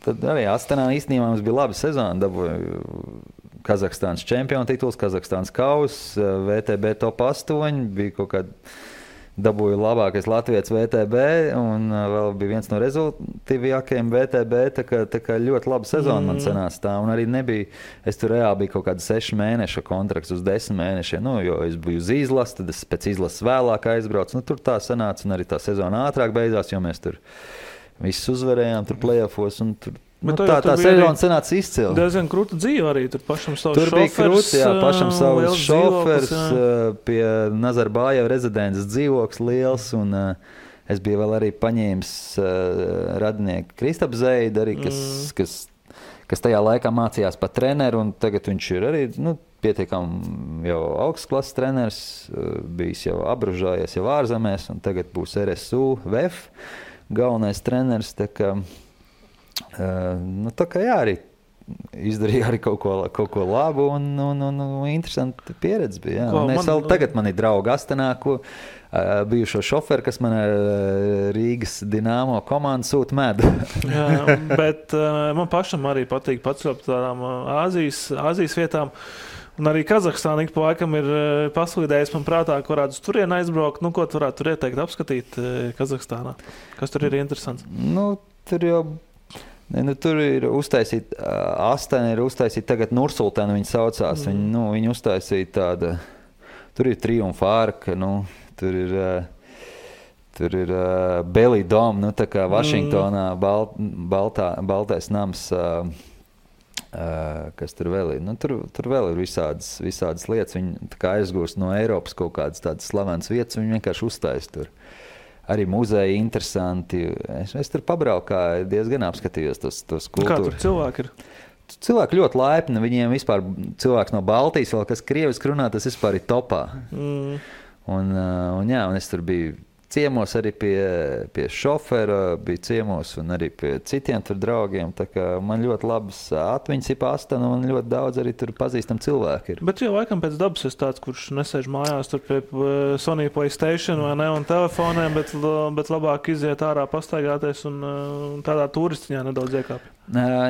tad arī Astanā īstenībā mums bija laba sezona, dabūju Kazahstānas čempionu tituls, Kazahstānas kauss, VTB top 8, bija kaut kāda dabūju labākais latvietis VTB un vēl bija viens no rezultīvākajiem VTB, tā kā ļoti laba sezona man sanāca tā, un arī nebija, es tur reāli biju kaut kāda 6 mēneša kontrakts uz 10 mēnešiem, nu, jo es biju uz izlases, tad es pēc izlases vēlāk aizbraucu, nu, tur tā sanāca, un arī tā sezona ātrāk beidzās, jo mēs tur visus uzvarējām, tur play-offos, un tur nu, tā sezona sanāca izcili. Diezgan krūta dzīve arī, tur pašam savs šofers. Tur bija krūti, jā, pašam savs šofers, pie Nazarbājeva rezidents dzīvoklis liels, un es biju vēl arī paņēmis radinieku Kristapu Zeidu, arī, kas tajā laikā mācījās par treneru, un tagad viņš ir arī, nu, pietiekam jau augstsklases treneris, bijis jau apbružājies jau ārzemēs, un tagad būs RSU VF galvenais treneris, tā kā tā kā jā, arī izdarīja arī kaut ko labu un interesanti pieredze bija. Jā. Tagad man ir draugi Astanā, bijušo šoferu, kas man Rīgas Dinamo komandu sūta medu. Jā, bet man pašam arī patīk pacelt tādām Āzijas vietām. Un arī Kazahstāna ik pa laikam ir paslīdējis man prātā, ka varētu uz turieni aizbraukt. Nu, ko tu varētu tur ieteikt apskatīt Kazahstānā? Kas tur ir interesants? Nu, tur jau... tur ir uztaisīta, Astana ir uztaisīta tagad Nursultāna, viņa saucās. Viņa uztaisīja tāda, tur ir triumfa arka, tur ir Belly Dome, tā kā Vašingtonā baltais nams, kas tur vēl ir. Tur vēl ir visādas lietas, viņi tā kā aizgūst no Eiropas kaut kādas tādas slavenas vietas, viņi vienkārši uztais tur. Arī muzeji interesanti. Es tur pabraukāju, diezgan apskatījos tos kultūru. Kā tur cilvēki ir? Cilvēki ļoti laipni. Viņiem vispār cilvēks no Baltijas, vēl kas krieviski runā, tas vispār ir topā. Un es tur biju ciemos arī pie šofera, bija ciemos un arī pie citiem tur draugiem. Tā kā man ļoti labas atmiņas ir Astana un ļoti daudz arī tur pazīstam cilvēki ir. Bet jau laikam pēc dabas es tāds, kurš nesēž mājās tur pie Sony PlayStation vai ne un telefoniem, bet labāk iziet ārā pastaigāties un tādā turistiņā nedaudz iekāpj.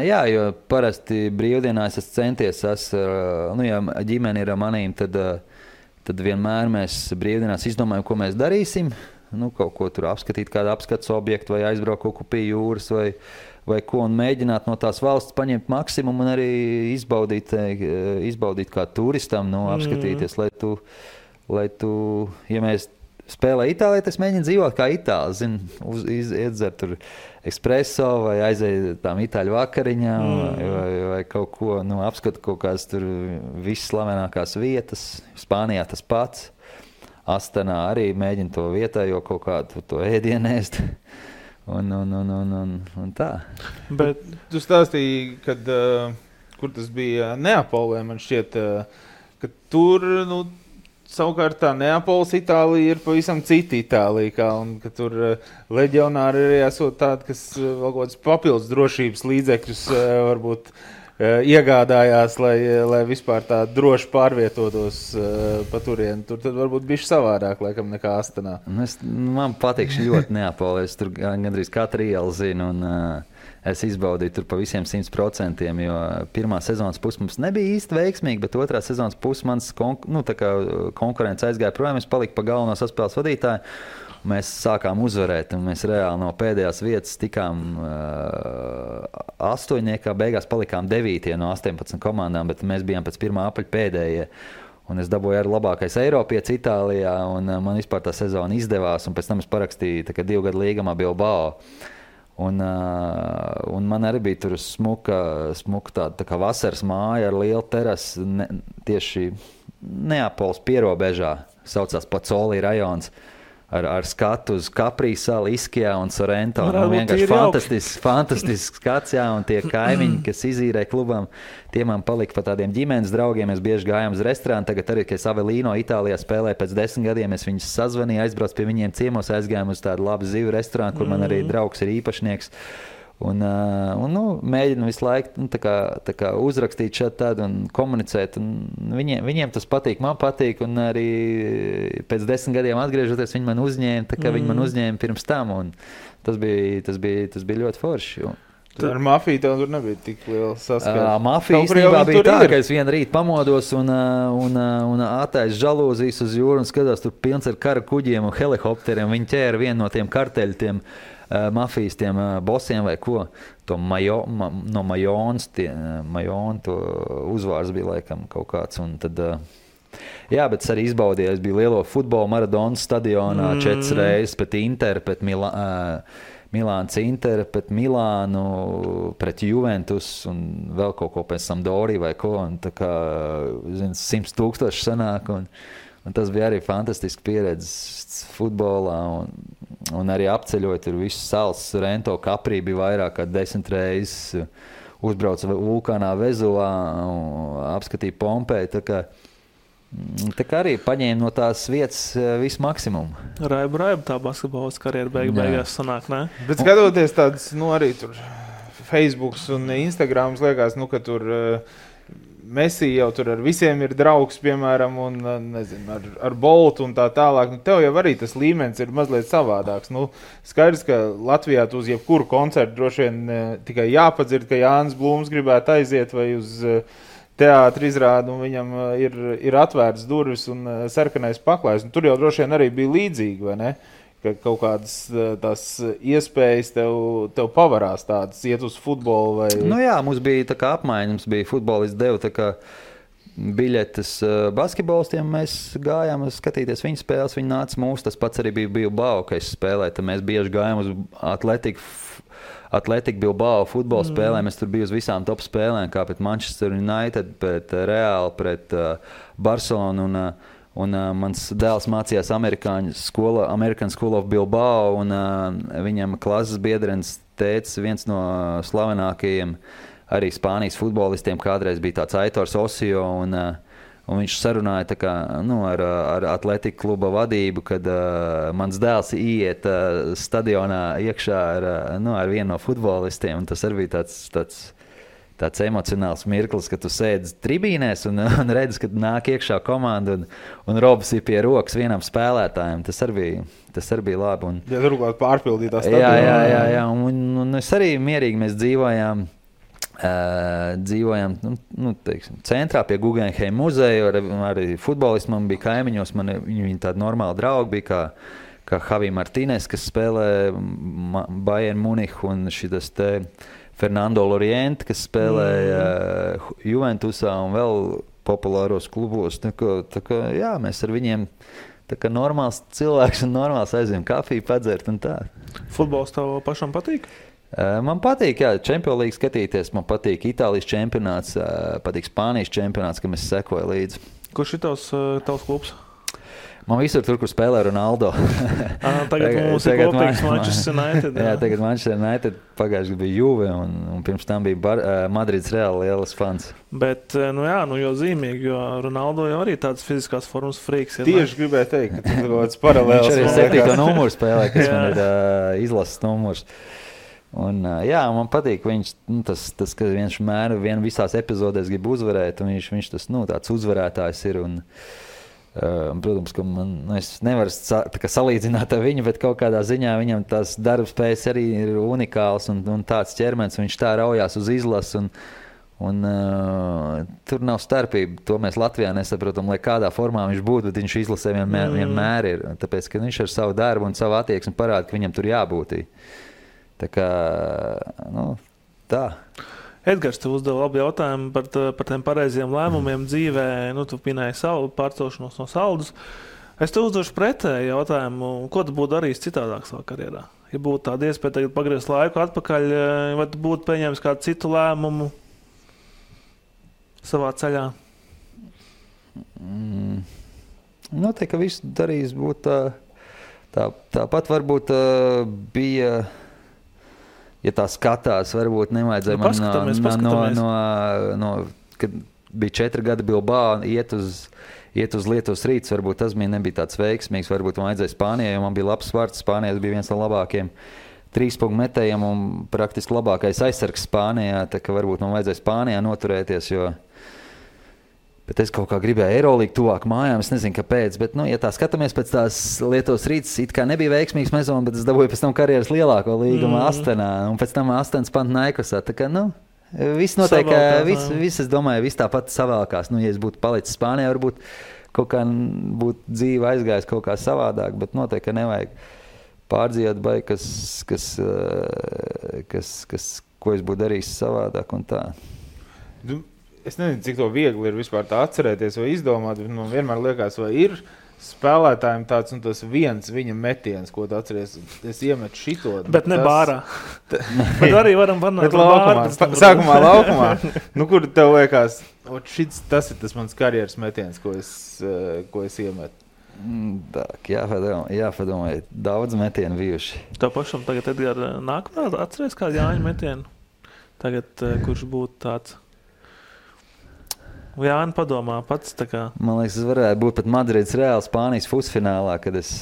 Jā, jo parasti brīvdienās es centies, ja ģimene ir ar manīm, tad vienmēr mēs brīvdienās izdomājam, ko mēs darīsim. Kaut ko tur apskatīt, kādu apskates objektu vai aizbraukt kaut ko pie jūras vai ko un mēģināt no tās valsts paņemt maksimumu un arī izbaudīt kā turistam, apskatīties, lai tu, ja mēs spēlē Itālijā, tas mēģina dzīvot kā Itāli, iedzert tur espresso vai aiziet tām itāļu vakariņām vai vai kaut ko, apskatu kaut kādas tur visas slavenākās vietas. Spānijā tas pats. Astanā arī mēģina to vietējo kaut kādu to ēdienu ēst. Un tā. Bet tu stāstīji, kad, kur tas bija Neapolē, man šķiet, ka tur, savukārt tā Neapoles Itālija ir pavisam cita Itālija, un ka tur leģionāri arī esot tādi, kas vēl kaut kādas papildus drošības līdzekļus varbūt iegādājās, lai vispār tā droši pārvietotos pa turieni. Tur tad varbūt bišķi savādāk, laikam, nekā Astanā. Man patīk ļoti Neapolē. Es tur gandrīz katru ielu zinu, un es izbaudīju tur pa visiem 100%, jo pirmā sezonas pusi mums nebija īsti veiksmīga, bet otrā sezonas pusi mans konkurence aizgāja projām. Es paliku pa galveno saspēles vadītāju. Mēs sākām uzvarēt, un mēs reāli no pēdējās vietas tikām 8. Beigās palikām 9. no 18 komandām, bet mēs bijām pēc pirmā apaļa pēdējie. Un es dabūju arī labākais Eiropietis Itālijā, un man vispār tā sezona izdevās, un pēc tam es parakstīju 2 gadu līgumā Bilbao. Un man arī bija tur smuka tāda tā kā vasaras māja ar lielu terasi tieši Neapoles pierobežā, saucās Pozzoli rajons. Ar skatu uz Capri salu, Iskijā un Sorrento. Vienkārši fantastisks skats, jā, un tie kaimiņi, kas izīrē klubam, tie man palika pa tādiem ģimenes draugiem. Mēs bieži gājām uz restorānu. Tagad arī, kad es Avelino Itālijā spēlēju pēc 10 gadiem, es viņus sazvanīju, aizbraucu pie viņiem ciemos, aizgājām uz tādu labu zivu restorānu, kur man arī draugs ir īpašnieks. Un mēģinu visu laiku tā kā uzrakstīt šādi tādu un komunicēt. Un viņiem tas patīk, man patīk. Un arī pēc 10 gadiem atgriežoties, viņi man uzņēma, tā kā viņi man uzņēma pirms tam. Un tas bija ļoti forši. Ar mafiju tev tur nebija tik liela saskara. Mafija īstenībā bija tā, ka es vienu rītu pamodos un attaisu žalūzijas uz jūru un skatās tur pilns ar kara kuģiem un helikopteriem. Viņi ķēra vienu no tiem karteļu mafijas tiem bosiem vai ko. No Majonas, Majona to uzvārds bija laikam kaut kāds. Un tad, jā, bet es arī izbaudīju. Es biju lielo futbolu Maradonas stadionā 4 reizes pret Interu, pret Milāns Interu, pret Milānu, pret Juventus un vēl kaut ko pēc Sampdoriju vai ko. Un tā kā 100,000 sanāk. Un tas bija arī fantastiski pieredze futbolā. Un arī apceļot tur visu salas, Sorrento, Capri bija vairāk kā 10 reizes. Uzbrauca vulkānā Vezuvā, apskatīja Pompeju. Tā kā arī paņēma no tās vietas visu maksimumu. Raiba tā basketbolas karjera beigās sanāk, ne? Bet skatoties tādas, arī tur Facebooks un Instagrams liekas, ka tur Messi jau tur ar visiem ir draugs, piemēram, un, nezinu, ar Boltu un tā tālāk. Tev jau arī tas līmenis ir mazliet savādāks. Skaidrs, ka Latvijā tu uz jebkuru koncertu droši vien tikai jāpadzird, ka Jānis Blūms gribētu aiziet vai uz teātri izrādu, un viņam ir atvērts durvis un sarkanais paklājs. Un tur jau droši vien arī bija līdzīgi, vai ne? Ka kaut kādas tās iespējas tev pavarās tādas, iet uz futbolu vai... Jā, mums bija tā kā apmaiņa, mums bija futbolisti devu tā kā biļetes basketbolistiem, mēs gājām skatīties viņu spēles, viņi nāca mūsu, tas pats arī bija Bilbao, ka es spēlēju, tad mēs bieži gājām uz Atletiku Bilbao futbola spēlēm, es tur biju uz visām top spēlēm, kā pret Manchester United, pret Real, pret Barcelonu un mans dēls mācījās American School of Bilbao, un viņam klases biedrenis tēcis, viens no slavenākajiem arī Spānijas futbolistiem, kādreiz bija tāds Aitors Osio, un viņš sarunāja tā kā, ar Atletiku kluba vadību, kad mans dēls iet stadionā iekšā ar vienu no futbolistiem, un tas arī bija tāds emocionāls mirklis, ka tu sēdi tribīnēs un redzi, kad nāk iekšā komanda un robs ir pie rokas vienam spēlētājam. Tas arī bija labi. Ja turklāt pārpildītā stadionā. Jā. Un es arī mierīgi mēs dzīvojām teiksim, centrā pie Guggenheim muzeja, arī futbolisti man bija kaimiņos, viņi tādi normāli draugi bija, kā Javi Martínez, kas spēlē Bayern Munichu, un šitas te Fernando Loriente, kas spēlēja Juventusā un vēl populāros klubos. Tā kā, jā, mēs ar viņiem tā kā normāls cilvēks un normāls aizvien kafiju padzert un tā. Futbols tev pašam patīk? Man patīk, jā, Champions League skatīties, man patīk Itālijas čempionāts, patīk Spānijas čempionāts, kam es sekoju līdzi. Kurš ir tavs klubs? Man visur tur, kur spēlē Ronaldo. Tagad mums ir kopīgs Manchester United. Jā, tagad Manchester United pagājuši bija Juve un pirms tam bija Madrids Real lielas fans. Bet, jo zīmīgi, jo Ronaldo jau arī tāds fiziskās formas frīks. Tieši gribēju teikt, ka tas ir kaut kāds paralēls. Viņš arī 7. numuru spēlē, kas man ir izlases numurs. Un, man patīk viņš, tas ka viņš vien visās epizodēs grib uzvarēt, un viņš tas, tāds uzvarētājs ir. Un, protams, ka es nevaru salīdzināt ar viņu, bet kaut kādā ziņā viņam tās darbspējas arī ir unikāls un tāds ķermenis, viņš tā raujās uz izlasu un tur nav starpība. To mēs Latvijā nesaprotam, lai kādā formā viņš būtu, bet viņš izlasē vienmēr ir. Tāpēc, ka viņš ar savu darbu un savu attieksmi parāda, ka viņam tur jābūt. Tā kā, tā. Edgars, tu uzdevi labu jautājumu par tiem pareiziem lēmumiem dzīvē. Tu minēji savu pārcelšanos no Saldus. Es tev uzdošu pretēju jautājumu, ko tu būtu darījis citādāk savā karjerā? Ja būtu tāda iespēja tagad pagriezt laiku atpakaļ, vai tu būtu pieņēmis kādu citu lēmumu savā ceļā? Noteikti, ka viss darījis būtu tāpat varbūt bija... Ja tā skatās, varbūt nevajadzēja man kad bija 4 gadi Bilbao, iet uz Lietuvas Rīts, varbūt tas nebija tāds veiksmīgs, varbūt man vajadzēja Spānijai, jo man bija labs vārds, Spānijas bija viens no labākiem 3-punktu metējiem un praktiski labākais aizsargs Spānijā, tā ka varbūt man vajadzēja Spānijā noturēties, bet es kaut kā gribēju Eirolīgu tuvāk mājām, es nezinu, kāpēc, bet, ja tā skatāmies pēc tās Lietuvas Rīts, it kā nebija veiksmīgs sezona, bet es dabūju pēc tam karjeras lielāko līgumu Astenā, un pēc tam Astenas Panathinaikosā, tā kā, viss notiek, viss, es domāju, viss tāpat savēlkās, ja es būtu palicis Spānijā, varbūt kaut kā būtu dzīve aizgājis kaut kā savādāk, bet noteikti, ka nevajag pārdzīvot vai ko es būtu darījis savādāk un tā. Es nezinu, cik to viegli ir vispār tā atcerēties vai izdomāt, bet man vienmēr liekas, vai ir spēlētājiem tāds un tas viens viņa metiens, ko tu atceries, es iemetu šito. Bet ne bārā. Bet arī varam panākt bārā. Sākumā laukumā. Kur tev liekas, tas ir tas mans karjeras metiens, ko es iemetu. Jāpadomā, daudz metienu bijuši. Tev pašam tagad, Edgar, nākamā atceries kādu Jāņu metienu? Tagad, kurš būtu tāds? Jāni padomā pats. Man liekas, tas varētu būt pat Madrids Real Spānijas pusfinālā, kad es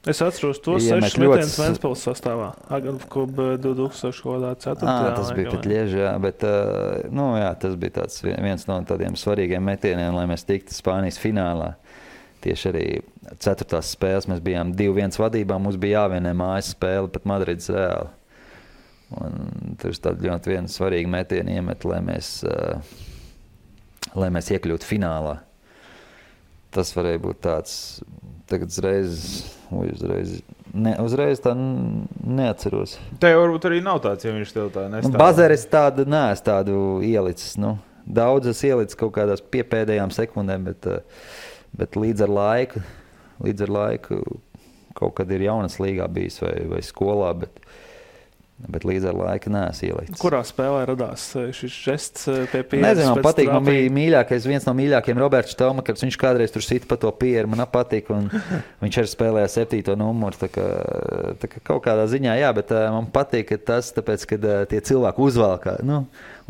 atceros tos 6 metienus Ventspils sastāvā. Agantklub 2004. Tas bija pat Lieži, bet tas bija tāds viens no tādiem svarīgiem metieniem, lai mēs tiktu Spānijas finālā. Tieši arī 4. spēles mēs bijām 2-1 vadībā, mums bija jāvienē mājas spēle pat Madrids Real. Un tur ir tādi ļoti viena svarīga metiena iemet, lai mēs iekļūtu finālā. Tas varēja būt tāds, tagad uzreiz tā neatceros. Te varbūt arī nav tāds, ja viņš tev tā nestāv. Bazeres neesmu tādu ielicis. Daudzas ielicis kaut kādās piepēdējām sekundēm, bet līdz ar laiku kaut kad ir jaunas līgā bijis vai skolā, bet līdz ar laiku neesmu ielicis. Kurā spēlē radās šis žests pie pieres? Nezinu, man patīk, man bija viens no mīļākajiem Roberts Štelmakers, viņš kādreiz tur sita pa to pieru, man patīk, un viņš arī spēlēja 7. numuru, tā kā kaut kādā ziņā, jā, bet man patīk tas, tāpēc, kad tie cilvēki uzvalkā,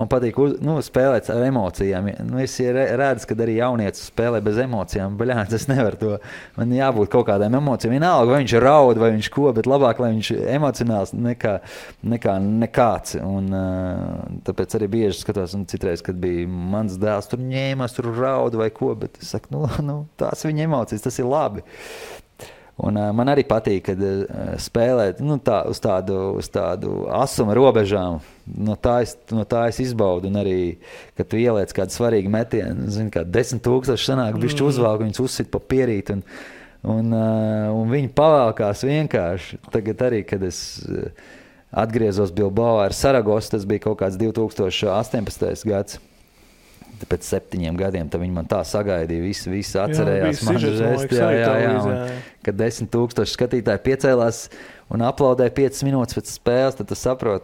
man patīk spēlēt ar emocijām. Es redzu, kad arī jaunietis spēlē bez emocijām. Baļāns, es nevaru to. Man jābūt kaut kādām emocijām. Vienalga, vai viņš raud, vai viņš ko, bet labāk, lai viņš emocionāls nekā nekāds. Un tāpēc arī bieži skatos, un citreiz, kad bija mans dēls, tur ņēmās, tur raud vai ko, bet es saku, tās viņa emocijas, tas ir labi. Un man arī patīk, kad spēlēt uz tādu asuma robežām. No tā es izbaudu. Un arī, kad tu ieliec kādu svarīgu metienu, kā 10,000 sanāk, bišķi uzvalk, viņus uzsit pa pierīt. Un viņi pavalkās vienkārši. Tagad arī, kad es atgriezos Bilbao ar Saragosu, tas bija kaut kāds 2018. gads. pēc 7 gadiem, tad viņi man tā sagaidīja, visi atcerējās man žesti, kad 10,000 skatītāji piecēlās un aplaudēja 5 minūtes pēc spēles, tad tu saproti,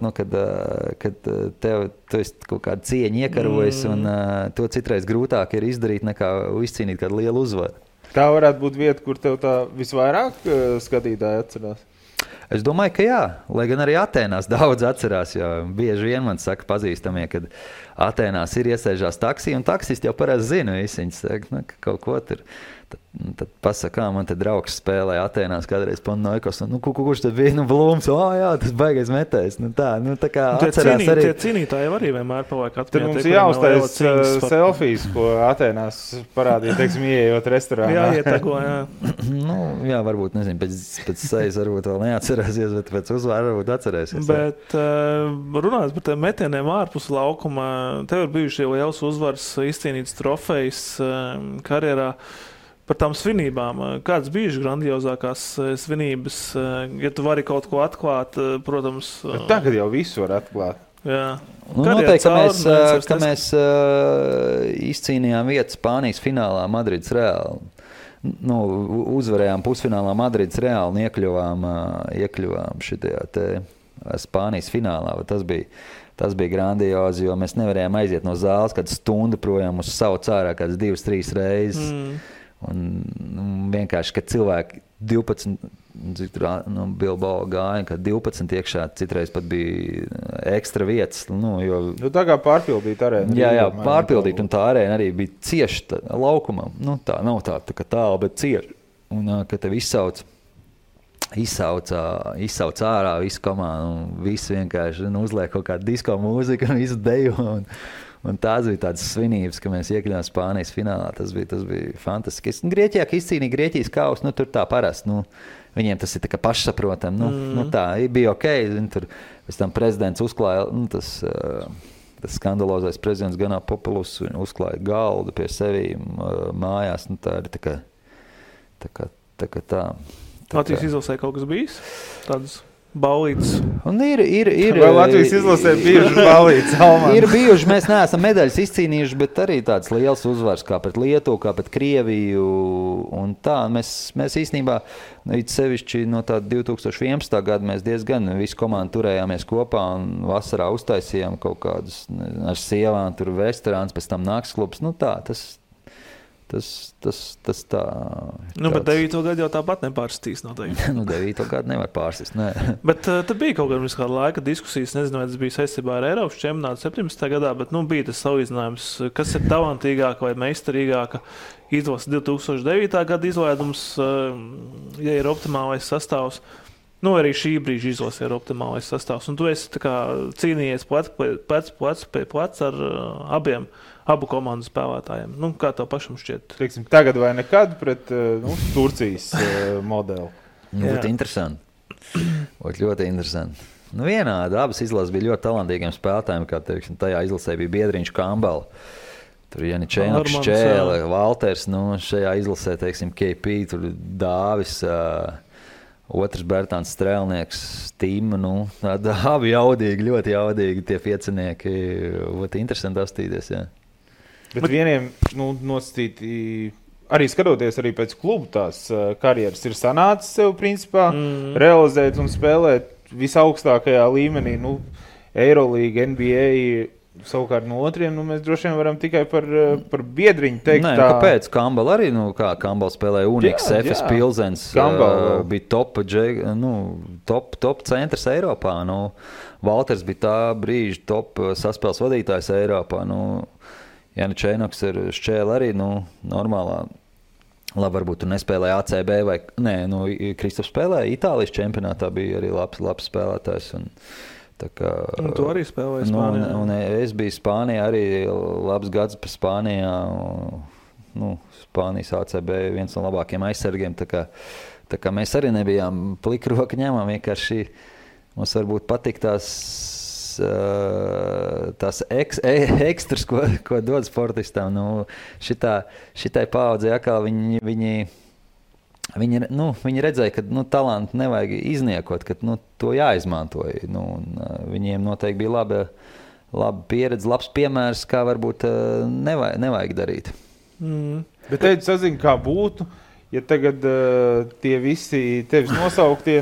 kad tu esi kaut kādu cieņu iekarojis, un to citreiz grūtāk ir izdarīt nekā izcīnīt kādu lielu uzvaru. Tā varētu būt vieta, kur tev tā visvairāk skatītāji atcerās? Es domāju, ka jā, lai gan arī Atēnās daudz atcerās, jo bieži vien man saka pazīstamie, kad Atēnās ir iesēžās taksī, un taksisti jau parasti zina visi, viņi saka, ka kaut ko tur. Tad pasaka, man te draugs spēlēja Atēnās kādreiz Panathinaikos, kurš tad bija, Blūms, jā, tas baigais metējs, tā kā atcerās arī. Tie cīnītāji arī vienmēr paliek atmiņā. Tad mums jāuztais selfijas, ko Atēnās parādīja, teiksim, ieejot restorānā. Jā, ietego, jā. Jā, varbūt, nezinu, pēc sejas varbūt vēl neatcerēsies, bet pēc uzvāra varbūt atcerēsies. Bet runājot par tiem metieniem ārpus laukuma, tev ir bijuši liels uzvars, izcīnīts trofejs karjerā. Par tām svinībām. Kādas bijušas grandiozākās svinības, ja tu vari kaut ko atklāt, protams. Tagad jau visu var atklāt. Jā. Noteikti, ka mēs izcīnījām vietu Spānijas finālā Madrids Reāli. Uzvarējām pusfinālā Madrids Reāli un iekļuvām šitajā te Spānijas finālā. Tas bija grandiozi, jo mēs nevarējām aiziet no zāles kādu stundu projām uz savu cārā kādas 2-3 reizes. Un vienkārši, kad cilvēki 12, Bilbao gāja, kad 12 iekšā, citreiz pat bija ekstra vietas. Tā kā pārpildīt arēnu. Jā, pārpildīt, un tā arēna arī bija cieši laukumam. Tā nav tā kā tālu, bet cieši. Un, kad tev izsauc ārā visu komandu, un visi vienkārši uzliek kaut kādu disko mūziku un visu deju. Un tās bija tādas svinības, ka mēs iekļuvām Spānijas finālā. Tas bija fantastiski. Grieķijā, ka izcīnīja Grieķijas kausu, tur tā parasti. Viņiem tas ir tā kā pašsaprotam. Tā bija ok. Tur pēc tam prezidents uzklāja, tas skandalozais prezidents Ganapopoulos, uzklāja galdu pie sevīm mājās. Tā ir tā kā. Latvijas izlasē kaut kas bijis? Tādas baulītes. Un ir vēl Latvijas izlasē bijušas baulītes. Ir bijuši, mēs neesam medaļas izcīnījuši, bet arī tāds liels uzvars kā pret Lietuvu, kā pret Krieviju. Un tā, mēs īstenībā, sevišķi no tā 2011. Gada mēs diezgan visu komandu turējāmies kopā un vasarā uztaisījām kaut kādus ar sievām, tur restorāns, pēc tam naktsklubs. Tas tā. Bet 9. Gadu jau tāpat nepārsistīs noteikti. 9. Gadu nevar pārsist, nē. Bet tad bija kaut kāda laika diskusijas, nezinu, vai tas bija saistībā ar Eiropas čempionātu 17. gadā, bet bija tas salīdzinājums, kas ir talantīgāka vai meistarīgāka izlase 2009. Gada izlaidums, ja ir optimālais sastāvs. Arī šī brīža izlase ir optimālais sastāvs. Un tu esi cīnījies plec ar abu komandu spēlētājiem. Kā tev pašam šķiet? Teiksim, tagad vai nekad pret Turcijas modeli? Būtu interesanti. Būtu ļoti interesanti. Vienādi. Abas izlases bija ļoti talantīgiem spēlētājiem, kā teiksim, tajā izlasē bija Biedriņš Kambala. Tur Janičēnoks, Čēle, Valters, šajā izlasē, teiksim, KP, tur Dāvis, otrs Bertāns Strēlnieks, Tīma, abi jaudīgi, ļoti jaudīgi tie piecinieki. Būtu interesanti apstīties, jā. Bet vieniem nosacīti, arī skatoties arī pēc klubu tās karjeras, ir sanācis sev principā realizēt un spēlēt visaugstākajā līmenī, Eirolīga, NBA. Savukārt no otriem, mēs droši vien varam tikai par Biedriņu teikt. Nē, kāpēc? Kambala arī, kā Kambala spēlēja Unix, FS Pilsens, bija top centrs Eiropā. Valters bija tā brīža top saspēles vadītājs Eiropā. Janičēnoks ir Šķēle arī, normālā. Labi, varbūt tu nespēlēja ACB vai, Kristofs spēlēja Itālijas čempionātā, bija arī labs spēlētājs. Un tu arī spēlēji Spānijā. Un es biju Spānijā arī labs gads pa Spānijā. Spānijas ACB viens no labākiem aizsargiem. Tā kā mēs arī nebijām plikroka ņemam. Vienkārši mums varbūt patīk tās ekstras, ko dod sportistam. Šitai paaudzei atkal viņi redzēja, ka talantu nevajag izniekot, ka to jāizmanto. Viņiem noteikti bija laba pieredze, labs piemērs, kā varbūt nevajag darīt. Bet te sazinu, kā būtu, ja tagad tie visi tevis nosauktie,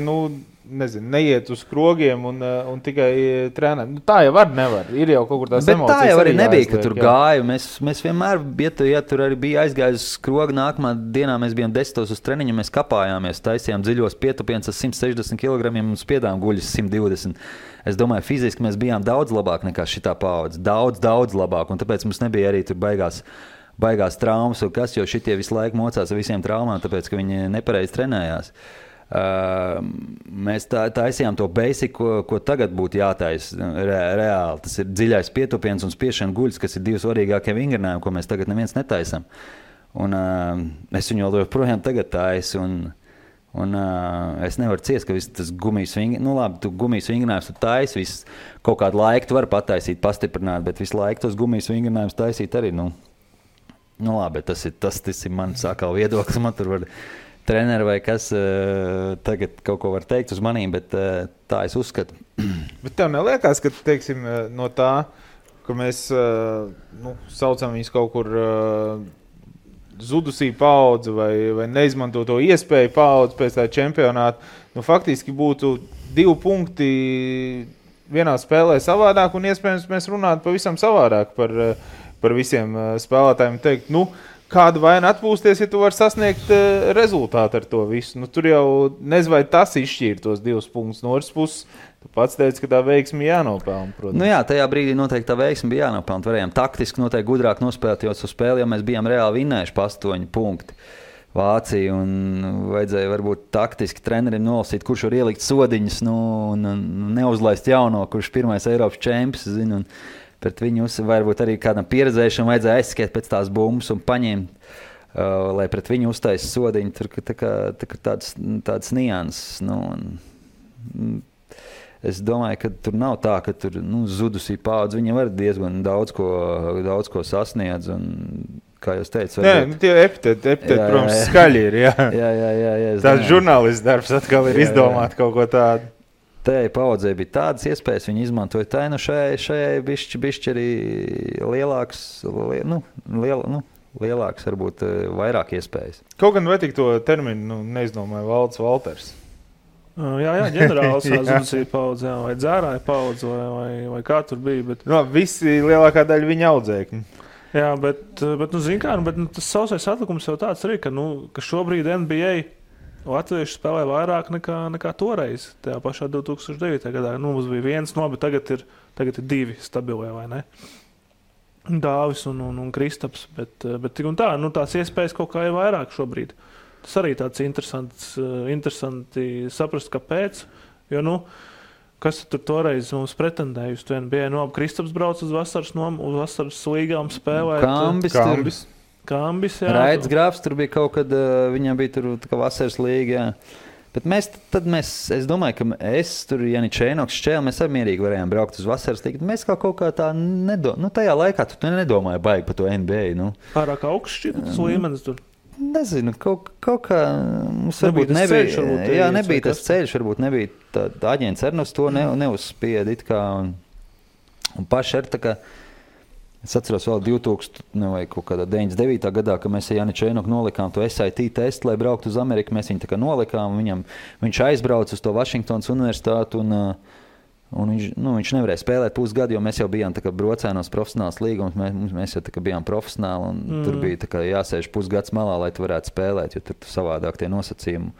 nezinu, neiet uz krogiem un tikai trenē. Tā jau nevar. Ir jau kaut kur tās bet emocijas. Tā jau arī nebija, jāizliek, ka tur gāju. Mēs vienmēr, ja tur arī bija aizgājis uz krogu, nākamā dienā mēs bijām 10 uz treniņu, mēs kapājāmies, taisījām dziļos pietupienus ar 160 kg un spiedām guļus 120. Es domāju, fiziski mēs bijām daudz labāk nekā šitā paudze. Daudz labāk, un tāpēc mums nebija arī tur baigās traumas, jo šitie visu laiku mocās ar visiem traumām, tāpēc, ka viņi nepareizi trenējās. Mēs taisījām to basic, ko tagad būtu jātaisa reāli. Tas ir dziļais pietupiens un spiešana guļas, kas ir divi svarīgākie vingrinājumi, ko mēs tagad neviens netaisam. Un es viņu joprojām tagad taisu. Un es nevaru ciest, ka viss tas gumijas vingrinājums, labi, tu gumijas vingrinājums tu taisi, kaut kādu laiku tu vari pataisīt, pastiprināt, bet visu laiku tos gumijas vingrinājumus taisīt arī, labi, tas ir mans atkal viedoklis, man tur var treneri vai kas tagad kaut ko var teikt uz manīm, bet tā es uzskatu. Bet tev neliekās, ka, teiksim, no tā, ka mēs saucam viņus kaut kur zudusī paudze vai neizmanto to iespēju paudze pēc tā čempionāta, faktiski būtu 2 punkti vienā spēlē savādāk un iespējams mēs runātu pavisam savādāk par visiem spēlētājiem teikt, kāda vaina atpūsties, ja tu vari sasniegt rezultātu ar to visu. Tur jau nezinu, vai tas izšķīra tos 2 punktus no otras puses. Tu pats teici, ka tā veiksme jānopelna, protams. Jā, tajā brīdī noteikti tā veiksme bija jānopelna. Varējām taktiski noteikti gudrāk nospēlēt, jo uz spēli jau mēs bijām reāli vinnējuši pa 8 punkti Vāciju un vajadzēja varbūt taktiski trenerim nolasīt, kurš var ielikt sodiņus un neuzlaist jauno, kurš pirmais Eiropas čempions, zinu, un pret viņu varbūt arī kādam pieredzējušam vajadzēja aizskiet pēc tās bumbas un paņemt, lai pret viņu uztaisa sodiņu. Tur tāds nianses. Es domāju, ka tur nav tā, ka tur zudusī paudze. Viņi var diezgan daudz ko sasniedz. Un, kā jūs teicat, tie epiteti, protams, skaļi ir. Jā, tās žurnālists darbs atkal ir izdomāt kaut ko tādu. Tajai paudzei bija tādas iespējas, viņi izmantoja tā, šajai bišķi arī lielāks, varbūt vairāk iespējas. Kaut gan vai tik to terminu neizdomāja Valds Valters? Jā, ģenerāls zudusīja paudze, vai dzērāja paudze, vai kā tur bija. Bet... visi lielākā daļa viņa audzēkņi. Jā, bet zin kā, tas sausais atlikums jau tāds arī, ka šobrīd NBA latvieši spēlē vairāk nekā toreiz, tajā pašā 2009. gadā. Mums bija 1, bet tagad ir 2 stabilie, vai ne? Dāvis un Kristaps, bet tik un tā, tās iespējas kaut kā ir vairāk šobrīd. Tas arī tāds interesanti saprast, kāpēc, jo, kas tur toreiz mums pretendēja uz to NBA? Kristaps brauc uz vasaras līgām spēlēt. Kambis, jā. Raidis Grāfs, tur bija kaut kad, viņam bija tur kā vasaras līga, jā. Bet es domāju, ka tur, Janičēnoks, Šķēl, mēs arī mierīgi varējām braukt uz vasaras līgu. Mēs kaut kā tā tajā laikā tu nedomāji baigi par to NBA, Pārāk augsts šķiet, tas līmenis tur. Nezinu, kaut kā mums varbūt nebija tas ceļš, varbūt nebija tā aģents arī uz to neuzspied it kā un paši ar tā kā. Es atceros vēl 2000 vai kaut kādā 99. gadā, kad mēs ar Janičēnoku nolikām to SAT testu, lai brauktu uz Ameriku. Mēs viņu tā kā nolikām, viņš aizbrauca uz to Vašingtonas universitātu un viņš nevarēja spēlēt pusgadu, jo mēs jau bijām tā kā brocēnos profesionāls līgums, mēs jau tā kā bijām profesionāli un tur bija tā kā jāsēž pusgads malā, lai tu varētu spēlēt, jo tur savādāk tie nosacījumi.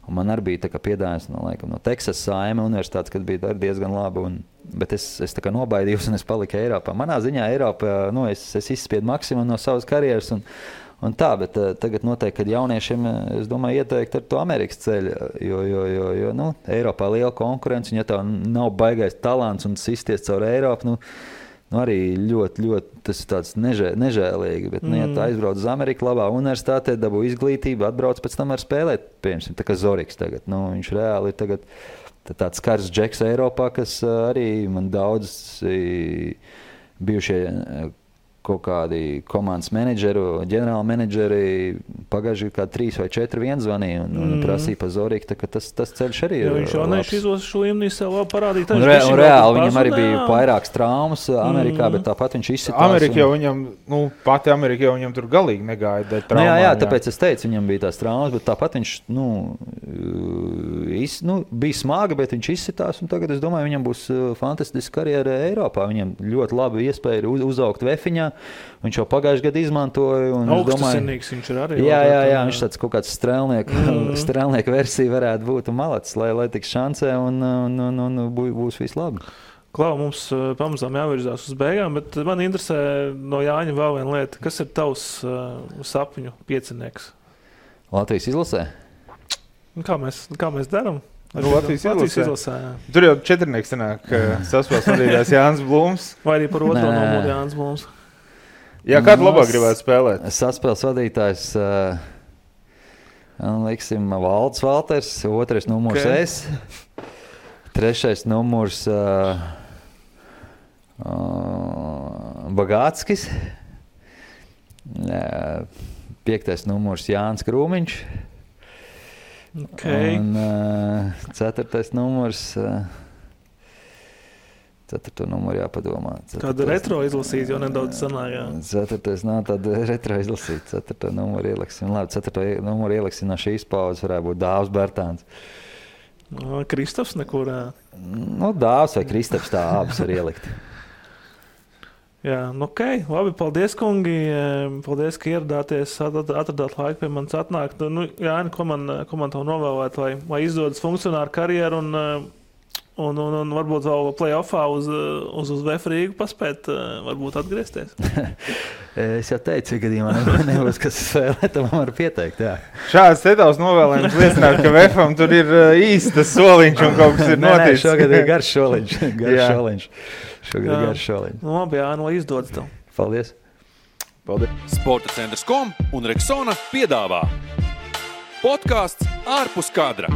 Un man arī bija tā kā piedāvājums no Teksas A&M universitātes, kad bija diezgan labi, bet es tā kā nobaidījos un es paliku Eiropā. Manā ziņā Eiropā, es izspiedu maksimumu no savas karjeras un tā, bet tagad noteikti, kad jauniešiem, es domāju, ieteikt ar to Amerikas ceļu, jo Eiropā liela konkurence, un ja tev nav baigais talants un sisties caur Eiropu, arī ļoti, tas ir tāds nežēlīgi, bet, ja tu aizbrauc uz Ameriku, labā universitātē, dabū izglītību, atbrauc pēc tam ar spēlēt, piemēram, tā kā Zoriks tagad, viņš reāli ir tagad tāds skars džeks Eiropā, kas arī man daudz bijušie kaut kādi komandas menedžeri, ģenerāli menedžeri pagājuši kā 3 vai 4 vien zvanīja un prasīja par Zorīku, tā ka tas ceļš arī ir viņš jau izos šo līmenī sev vēl parādīt. Un reāli viņam arī bija vairākas traumas Amerikā, bet tāpat viņš izsitās. Amerikā jau viņam, pati Amerikā jau viņam tur galīgi negāja dēļ traumām. Jā, tāpēc es teicu, viņam bija tās traumas, bet tāpat viņš, bija smaga, bet viņš izsitās, un tagad es domāju, viņam būs fantastiska karjera Eiropā. Viņam ļoti labi iespēja uzaugt vefiņā. Viņš jau pagājuši gadu izmantoja. Augstasinīgs viņš ir arī. Jā, viņš tāds kaut kāds strēlnieku versija varētu būt un malacis, lai tiks šancē un būs viss labi. Klau, mums pamazām jāvirzās uz beigām, bet man interesē no Jāņa vēl viena lieta. Kas ir tavs sapņu piecinieks? Latvijas izlasē? Kā mēs darām? Latvijas izlasē. Tur jau 4 sanāk saspēles vadītājs Jānis Blūms. Vai arī par otro numuru Jānis Blūms? Jā, kādu labāk gribētu spēlēt? Saspēles vadītājs, liksim, Valds Valters, 2. numurs es, 3. numurs Bagātskis, 5. numurs Jānis Krūmiņš. Okay. Un 4. numurs, 4. numuru jāpadomā. Kādu retro izlasīt, jau nedaudz sanāk, jā. 4. nav tāda retro izlasīt, 4. numuru ieliksim. Labi, 4. numuru ieliksim no šīs paudzes varētu būt Dāvs Bertāns. Kristofs nekur? Dāvs vai Kristaps tā abas var ielikt. Jā, labi, paldies, kungi. Paldies, ka ieradāties, atradāt laiku pie manis atnākt. Jāni, ko man tev novēlēt, lai izdodas funkcionāru karjeru un varbūt vēl play-offā uz VF Rīgu paspēt, varbūt atgriezties? Es jau teicu, ja gadījumā nebūs, kas spēlē, tad man var pieteikt, jā. Šāds tevs novēlējums liecināt, ka VFam tur ir īstas soliņš un kaut kas ir noticis. Šogad ir garš soliņš. Šogad ir garš soliņš. Labi, jā, lai izdodas tev. Paldies. Sporta centrs.com un Rexona piedāvā podcasts Ārpus kadra.